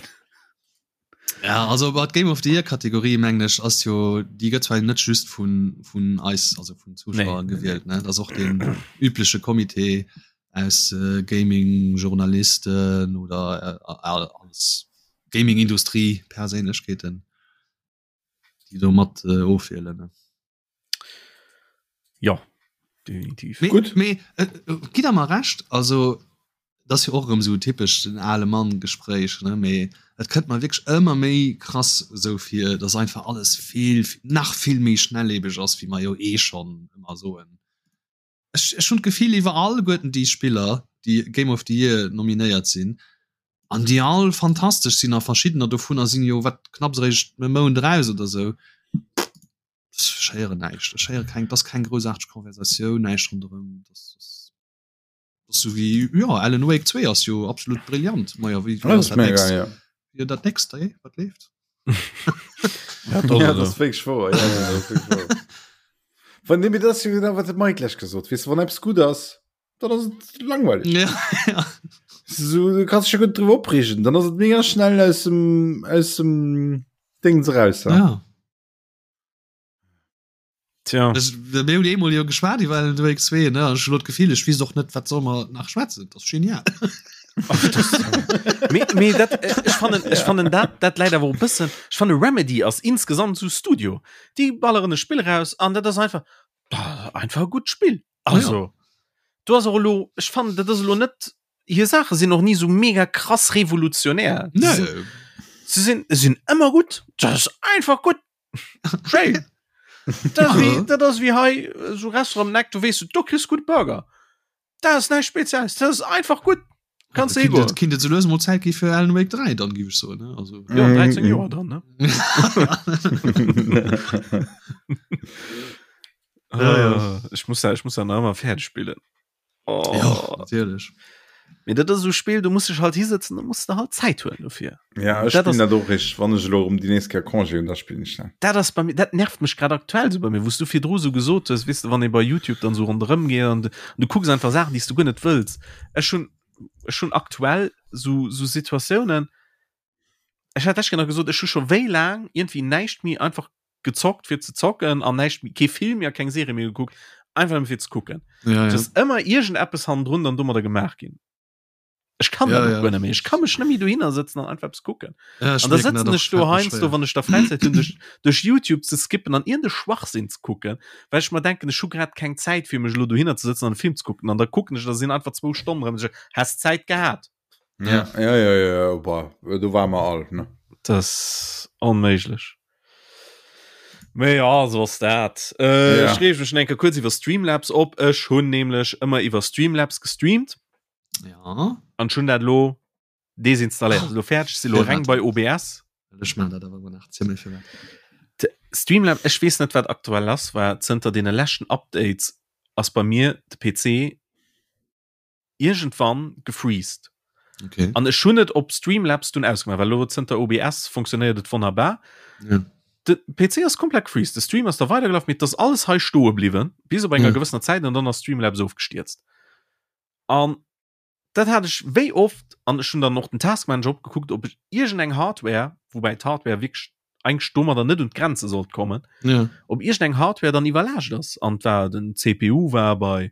Ja, also bei Game of the Year Kategorie mengen ech ass jo déi gëtt zwar net just vun vun eis also vun Zuschauer nee. gewielt ne das och den übliche Kommitee aus äh, Gaming Journalisten oder äh, als Gaming Industrie Perséinlechkeeten déi do mat äh, ofwielen ne. Ja definitiv. Mee, Gutt. Mee äh, äh, gitt der mer Recht, also dat ass jo och erëm esou typesch den ale Mann Gespréich, ne, mee et kënnt mer wierklech ëmmer méi krass esou vir, dass einfach alles vill, nach vill méi schnelllebeg ass, wéi mer jo eh schonn ëmmer soen. Ech, ech hunn d'Gefill iwwer alleguerten déi Spiller, déi Game of the Year nominéiert sinn an déi all fantastesch sinn a verschiddener dovunner sinn jo wat knapps eréischt e Mount eraus oder esou. Ech héieren näischt, ech héiere keng, et ass keng groussaarteg Konversatioun, näischt ronderëm. Dat ass, dat ass sou wéi, jo, Alan Wake 2 ass jo absolut brillant. Majo, wéi, wéi ass dat nächst? Ja. Jo, dat nächst, ey, wat leeft? Ja, dat ja, das wirklich wahr. Ja, das wirklich wahr. Wann dem das genau wat de Mike lech gesot weißt du, wann etwas gut ass, dann ass et langweilig. Ja, ja. So, du kannst dich gut drüber opregen, dann ass et mega schnell aus dem aus dem Dings raus. Ja. ja. Tja. Ech, mir hunn eemol jo geschwat iwwer Alan Wake 2, ne? An ech hunn elo d'Gefill, ech weess och net, wat soll mer nach schwätzen. Dat ass genial. Mee, mee dat, äh, ech fannen, ech fannen dat, dat läit awer och e bëssen, ech fanne Remedy ass insgesamt sou Studio. Déi balleren e Spill raus an dat ass einfach, einfach e gutt Spill. Also, do ass och elo, ech fannen, dat ass elo net, hir Saache sinn och ni sou mega krass revolutionär. Nee. Se sinn, sinn ëmmer gutt. Dat ass einfach gutt. Schéin. Dat ass wéi, dat ass wéi hei so Restaurant am Eck, du weess, do kriss gutt Burger. Dat ass näischt Spezielles, dat ass einfach gutt. Kanns du higoen. Kinnt et sou lues mol Zäit gi fir Alan Wake 3 dann, giff ech soen, ne? Also. Jo, 13 Joer dann, ne? Ja, ja. Ech muss dat, ech muss dat nach ëmmer fäerdeg spillen. Oh. Ja, natierlech. Mee dat ass esou Spill, du muss dech halt hisetzen, du muss der halt Zäit huelen dofir. Ja, ech Dat ass- spillen dat och rich, wann ech elo erëm déi nächst Kéier Congé hunn, da spillen ech dat. Dat ass bei mir, dat nervt mech grad aktuell sou bei mir, wou s du virdru sou gesot hues, weess de, wann ee bei YouTube dann sou ronderëm geet an du, du kucks einfach Saachen, déi s du guer net wëlls. Ech hunn, ech hunn aktuell sou, sou Situatiounen, ech hat lech nach gesot, ech hu scho wéi laang iergendwéi näischt méi einfach gezockt fir ze zocken an näischt méi, kee Film méi a keng Serie méi gekuckt, einfach nëmme fir ze kucken. Ja, Et ja. ass ëmmer iergendeppes hannendrun dann domadder gemaach ginn. Ech kann Ja, dat och ja. guer net méi. Ech ka mech net méi dohinner sëtzen an einfach eppes kucken. Ja, ech An da mierken dat sëtzen och, ech do fällt mir heiansdo, schwéier. wann ech da Fräizäit hunn, duerch, duerch YouTube ze skippen an iergende Schwachsinn ze kucken, well ech mer denken, ech hu grad keng Zäit fir mech elo dohinner ze sëtzen an e Film ze kucken. An da kucken ech, da sinn einfach zwou Stonnen erëm, häss Zäit gehat. Ja, ja, ja, ja, ja, boah, do war mer all, ne? Das ass onméiglech. Mee ja, so ass dat. Äh, ja. Ech reeg mech enke kuerz iwwer Streamlabs op. Ech hunn nämlech ëmmer iwwer Streamlabs gestreamt. Ja. An schon dat lo desinstalléiert. Lo fäerdeg si lo reng bei OBS. Ech man dat awer nach zimmlech fir Streamlabs, ech weess net wat aktuell ass, war zënter deene leschten Updates ass bei mir de PC iergendwann gefreezed. Okay. An ech hunn et op Streamlabs dunn ausgemaach, well elo zënter OBS funktionéiert et wonnerbar. Ja. De PC ass komplett gefreezed, de Stream ass da weidergelaf, mee et ass alles hei stoe bliwwen, bis op enger Ja. gewëssener Zäit an dann ass Streamlabs ofgestierzt. An dat hat ech wéi oft, an ech hunn dann och den Taskmanager opgekuckt, ob ech iergendeng Hardware, woubäi d'Hardware wierklech eigentlech domadder net un d'Grenze sollt kommen, ja. ob iergendeng Hardware dann iwwerlaascht ass. An war den CPU war bei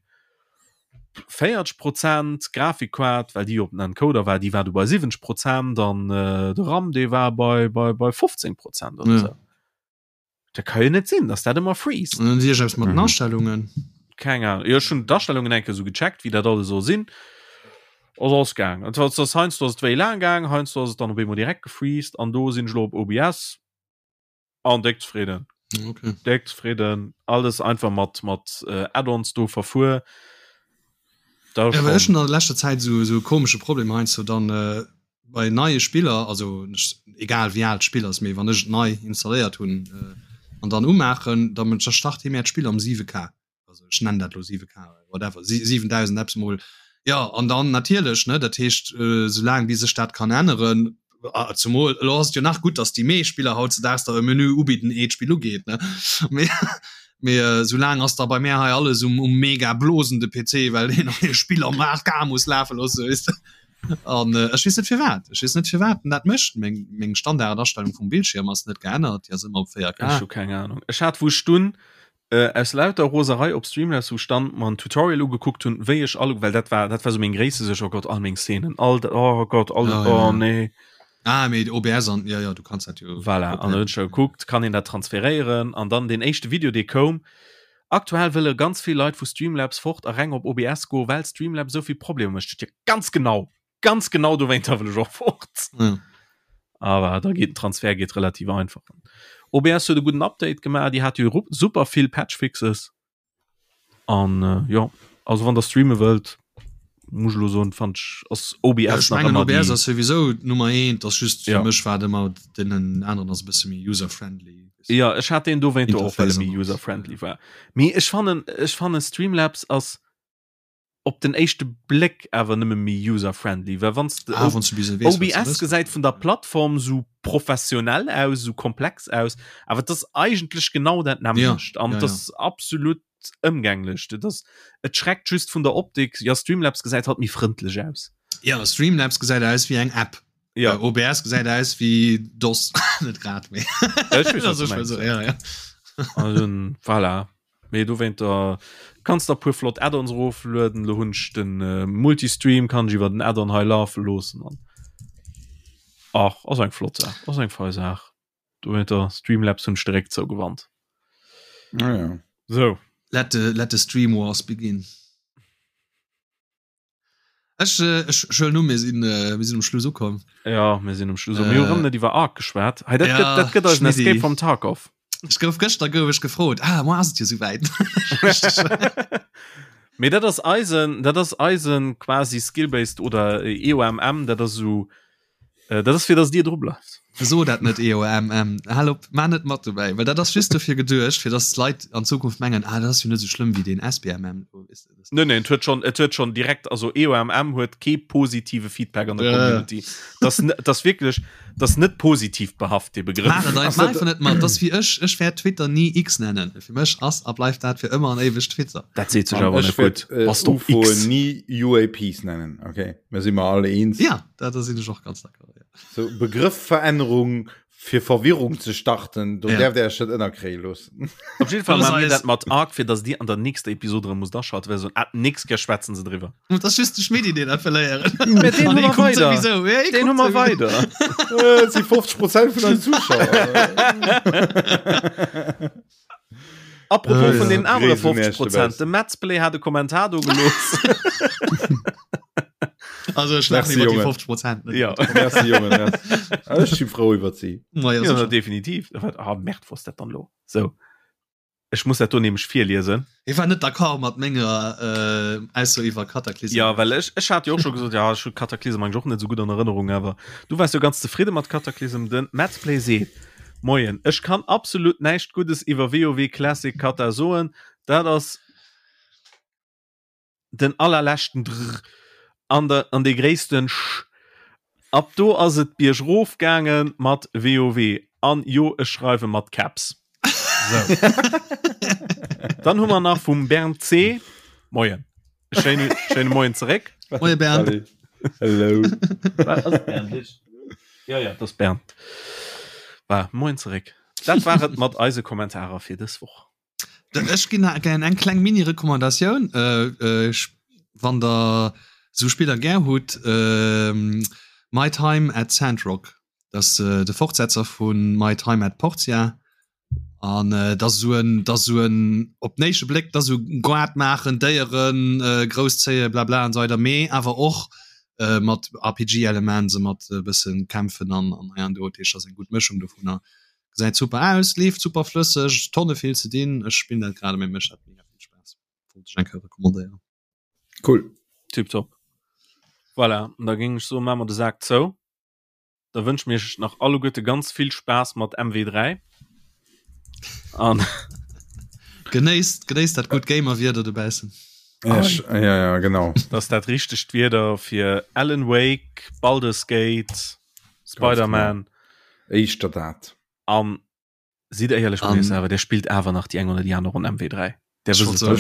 40 Prozent, Grafikkaart, well déi op den Encoder war, déi war du bei 70 Prozent an äh, de RAM dee war bei, bei, bei 15 Prozent oder ja. so. Dat kann jo net sinn, dass dat ëmmer freest. Und dann mat den mhm. Astellungen. Keng Ahnung. Jo, schon d'Astellungen enke so gecheckt, wie dat alles so sinn. Ass ass gaang. Et ass heiansdo ass et wéi laang gaang, heiansdo ass et dann op eemol direkt gefreezed an do sinn ech lo op OBS an déck zefridden. Okay. Déck zefridden. Alles einfach mat mat äh, Add-ons do verfuer. Da ja, ech schon an der leschter Zäit so so komesche Problem heiansdo dann äh, bei neie Spiller, also egal wéi al d'Spill ass, mee wann ech et nei installéiert hunn äh, an dann umaachen, da start hie mär d'Spill am 7K. also ech nennen dat lo 7K, whatever, 7000 eppes mol, jo, an dann natierlech, ne, dat heescht, soulaang bis ech dat kann änneren, zumol elo ass et jo nach gutt, datt déi meescht Spiller hautzedaags der e Menü ubidden, ehe d'Spill ugeet, ne, mee mee soulaang ass da bei mär hei alles um um mega blosende PC, well deen neie Spill am 8K muss lafe loosse, weess de, an ech weess net firwat, ech weess net firwat en dat mécht, meng meng Standardastellung vum Bildschierm ass net geännert, déi ass ëmmer op 4K. Ech hu keng Ahnung, ech hat wou ech dunn Äh, aus lauter Roserei op Streamlabs, wou ech dann mer en Tutorial ugekuckt hunn, wéi ech all, well dat war, dat war sou meng gréisste Suerg, oh Gott, all meng Szenen, all, oh Gott, all, Ja, oh ja. nee. Ah, mee OBS an, ja, ja, du kanns dat jo. Voilà, an dann hunn ech da gekuckt, kann een dat transferéieren? An dann deen éischte Video, dee koum, aktuell wëlle ganz vill Leit vu Streamlabs fort a reng op OBS goen, well Streamlabs esou vill Problemer mécht. Jo, ganz genau, ganz genau dowéinter wëll ech och fort. Ja. Aber da geht den Transfer geht relativ einfach. OBS huet e guten Update gemaach, déi hat jo super vill Patchfixes. An äh, ja, also wann der streame wëllt, muss lo soen, fand ich ass OBS ja, ich nach mengen, ëmmer OBS die ass sowieso Nummer 1, das just fir Ja. mech war ëmmer den anderen ass e bësse méi user-friendly. Ja, ech hat den dowéinter och, well e Interface méi an alles. user-friendly war. Mee ech fannen, ech fannen Streamlabs ass op den éischte Bléck awer nëmme méi user-friendly, well wann s de Ah, wann s du bis weess, wat s du OBS wëlls. gesäit vun der Plattform sou professionell aus, sou komplex aus, awer et ass eigentlech genau dat Ja, nämmlecht an ja, et ja. ass absolut ëmgänglech. Et ass, et schreckt just vun der Optik, ja Streamlabs gesäit halt méi frëndlech aus. Ja, Streamlabs gesäit aus wéi eng App. Ja. Äh, OBS gesäit aus wéi DOS. Net grad, mee. Ja, ech weess, wat Also, du ech mengs, so, ja. ja, ja. Also, voilà. Mee dowéinter kanns der puer flott Add-ons eroflueden. Lo hunn ech den äh, Multistream, kann ech iwwer den Add-on hei lafe loossen an ach, ass eng flott Saach, ass eng fei Saach. Dowéinter Streamlabs hunn ech direkt zougewannt. Ah, ja. So. Let the, let the stream wars begin. Ech, äh, ech schëllen um, mir sinn, äh, mir sinn um Schluss ukomm. Ja, mir sinn um Schluss. Äh, mir hu rëm net iwwer Ark geschwat. Hey, dat ja, gëtt, dat gëtt eisen Schmidti. Escape from Tarkov. Ech gouf gëschter gouf ech gefrot. Ah, moi ass et jo souwäit. Mee dat ass eisen, dat ass eisen quasi Skill-based oder EOMM, dat ass esou Äh, dat ass fir dass Dir dru bleift. So dat net EOMM. Hal op, maach net mat dobäi, well dat ass just dofir geduecht, fir dass d'Leit an Zukunft mengen, ah dat ass jo net esou schlëmm wéi deen SBMM. Nee, nee, et huet schon, et huet schon direkt, also EOMM huet kee positive Feedback an der Ja. Community. Das, das wierklech, das net positiv behaft, dee Begrëff. Maach et einfach, maach einfach net mat. Das wéi ech, ech wäert Twitter ni X nennen. Fir mech ass a bleift dat fir ëmmer an éiweg Twitter. Dat seet sech An awer ech net gutt. wäert äh, Bass du op UFO X? ni UAPs nennen, okay? Mir si mer alle eens. Ja, dat da sinn ech och ganz d'accord. Ja. So Begrëffverännerung fir Verwirrung ze starten, do Ja. därft Dir Iech net ënnerkréie loossen. Op jeden Fall Los maache mir eis. dat mat Ark, fir dass Dir an der nächster Episode erëm musst aschalten, well se soen, ah, d'nächst Kéier schwätzen se driwwer. Und das just de Schmidti, deen dat verléieren. Mä deen An hu dee mer kuckt weider. sowieso. Ja, Deen hu kuckt mer sowieso. weider. Et si 50 Prozent vun eisen Zuschauer. Apropos Ah, vun ja. den anere Gréis un 50 Iech Prozent, dobaussen. de Madsplay hat e Kommentar do gelooss. Also ech laachen iwwer déi 50 Prozent. Ja. Merci, Jongen, merci. Ech si frou iwwer si. Ma ja, ja, definitiv. Ah, Merd, wou ass dat dann lo? So. Ech muss dat do nämlech virliesen. Hie war net d'accord mat menger äh, Ausso iwwer Cataclysm. Ja, well ech, ech hat jo och scho gesot, ja, ech hu Cataclysm eigentlich och net sou gutt an Erënnerung, awer du waars jo ganz zefridde mat Cataclysm. Den Madsplay seet, Moien, ech kann absolut näischt Guddes iwwer WoW Classic Cata soen, dat ass den allerleschten Drr an der an dee gréissten Sch. Ab do ass et biergrof gaange mat WoW. An jo, ech schreiwe mat Caps. Sou. Dann hu mer nach vum Bernd C. Moien. Schéine, schéine Moien zeréck. Moie Bernd. Hello. Wat ass Bernd? Ja, ja, dat ass Bernd. War, Moien zeréck. Dat war et mat eise Kommentarer fir dës Woch. Ech ginn gär eng kleng Mini-Recommandatioun. Wann der esou Spiller gär hutt, My Time at Sandrock, dat ass de Fortsetzer vu My Time at Portia. An dat ass esou en, dat ass esou en, op den éischte Bléck, dat ass esou Goart maachen, Déieren grousszéien, blabla an esou weider, mee awer och mat RPG-Elements a mat e bësse kämpfen an hei an do. Dat heescht, dat ass eng gutt Mëschung dovunner. Gesäit super aus, leeft super flësseg, Tonne vill ze dinn. Ech spillen dat grad, mee mécht dat mega vill Spaass. Wollt ech eng Kéier recommandéieren. Cool. Tiptop. Voilà, an da géing ech soen, maache mer de Sak zou. Da wënsche mir iech nach alleguerte ganz vill Spaass mat MW3. An. Genéisst, genéisst dat gutt Gamer-Wieder dobaussen. Ja, ja, ja, genau. Dat ass dat richtegt Wieder fir Alan Wake, Baldur's Gate, Spider-Man. Éischter dat. An sidd éierlech mat iech selwer, der spillt awer nach déi eng oder déi aner Ronn MW3. Der wësst et doch.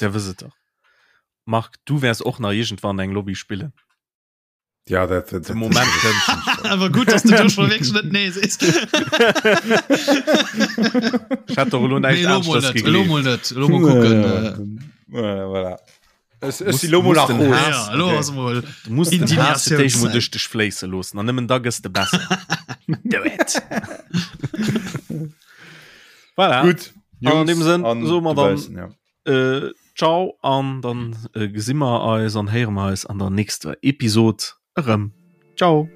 Der wësst et doch. Marc, du wäers och nach iergendwann eng Lobby spillen. Ja, dat, dat, De Moment kënnt. Awer gutt, dass du do scho wierklech net nee sees. Ech hätt doch elo näischt Nee, elo mol aneschters net, elo gegleeft. mol net. Elo mol kucken. Äh, Ja, voilà. Ech, ech Muss- si lo mol muss nach den rot. Haass- ja, elo Okay. ass mol Du musst den Haass fir d'éischt mol Indignatiounszäit. duerch dech fléisse loossen an nëmmen da gëss de besser. Do it! Voilà. Gutt. An deem Sënn an soe mer dann- dobaussen, ja. Äh, ciao an dann äh, gesi mer eis an héiere mer eis an der nächster Episod erëm. Ciao!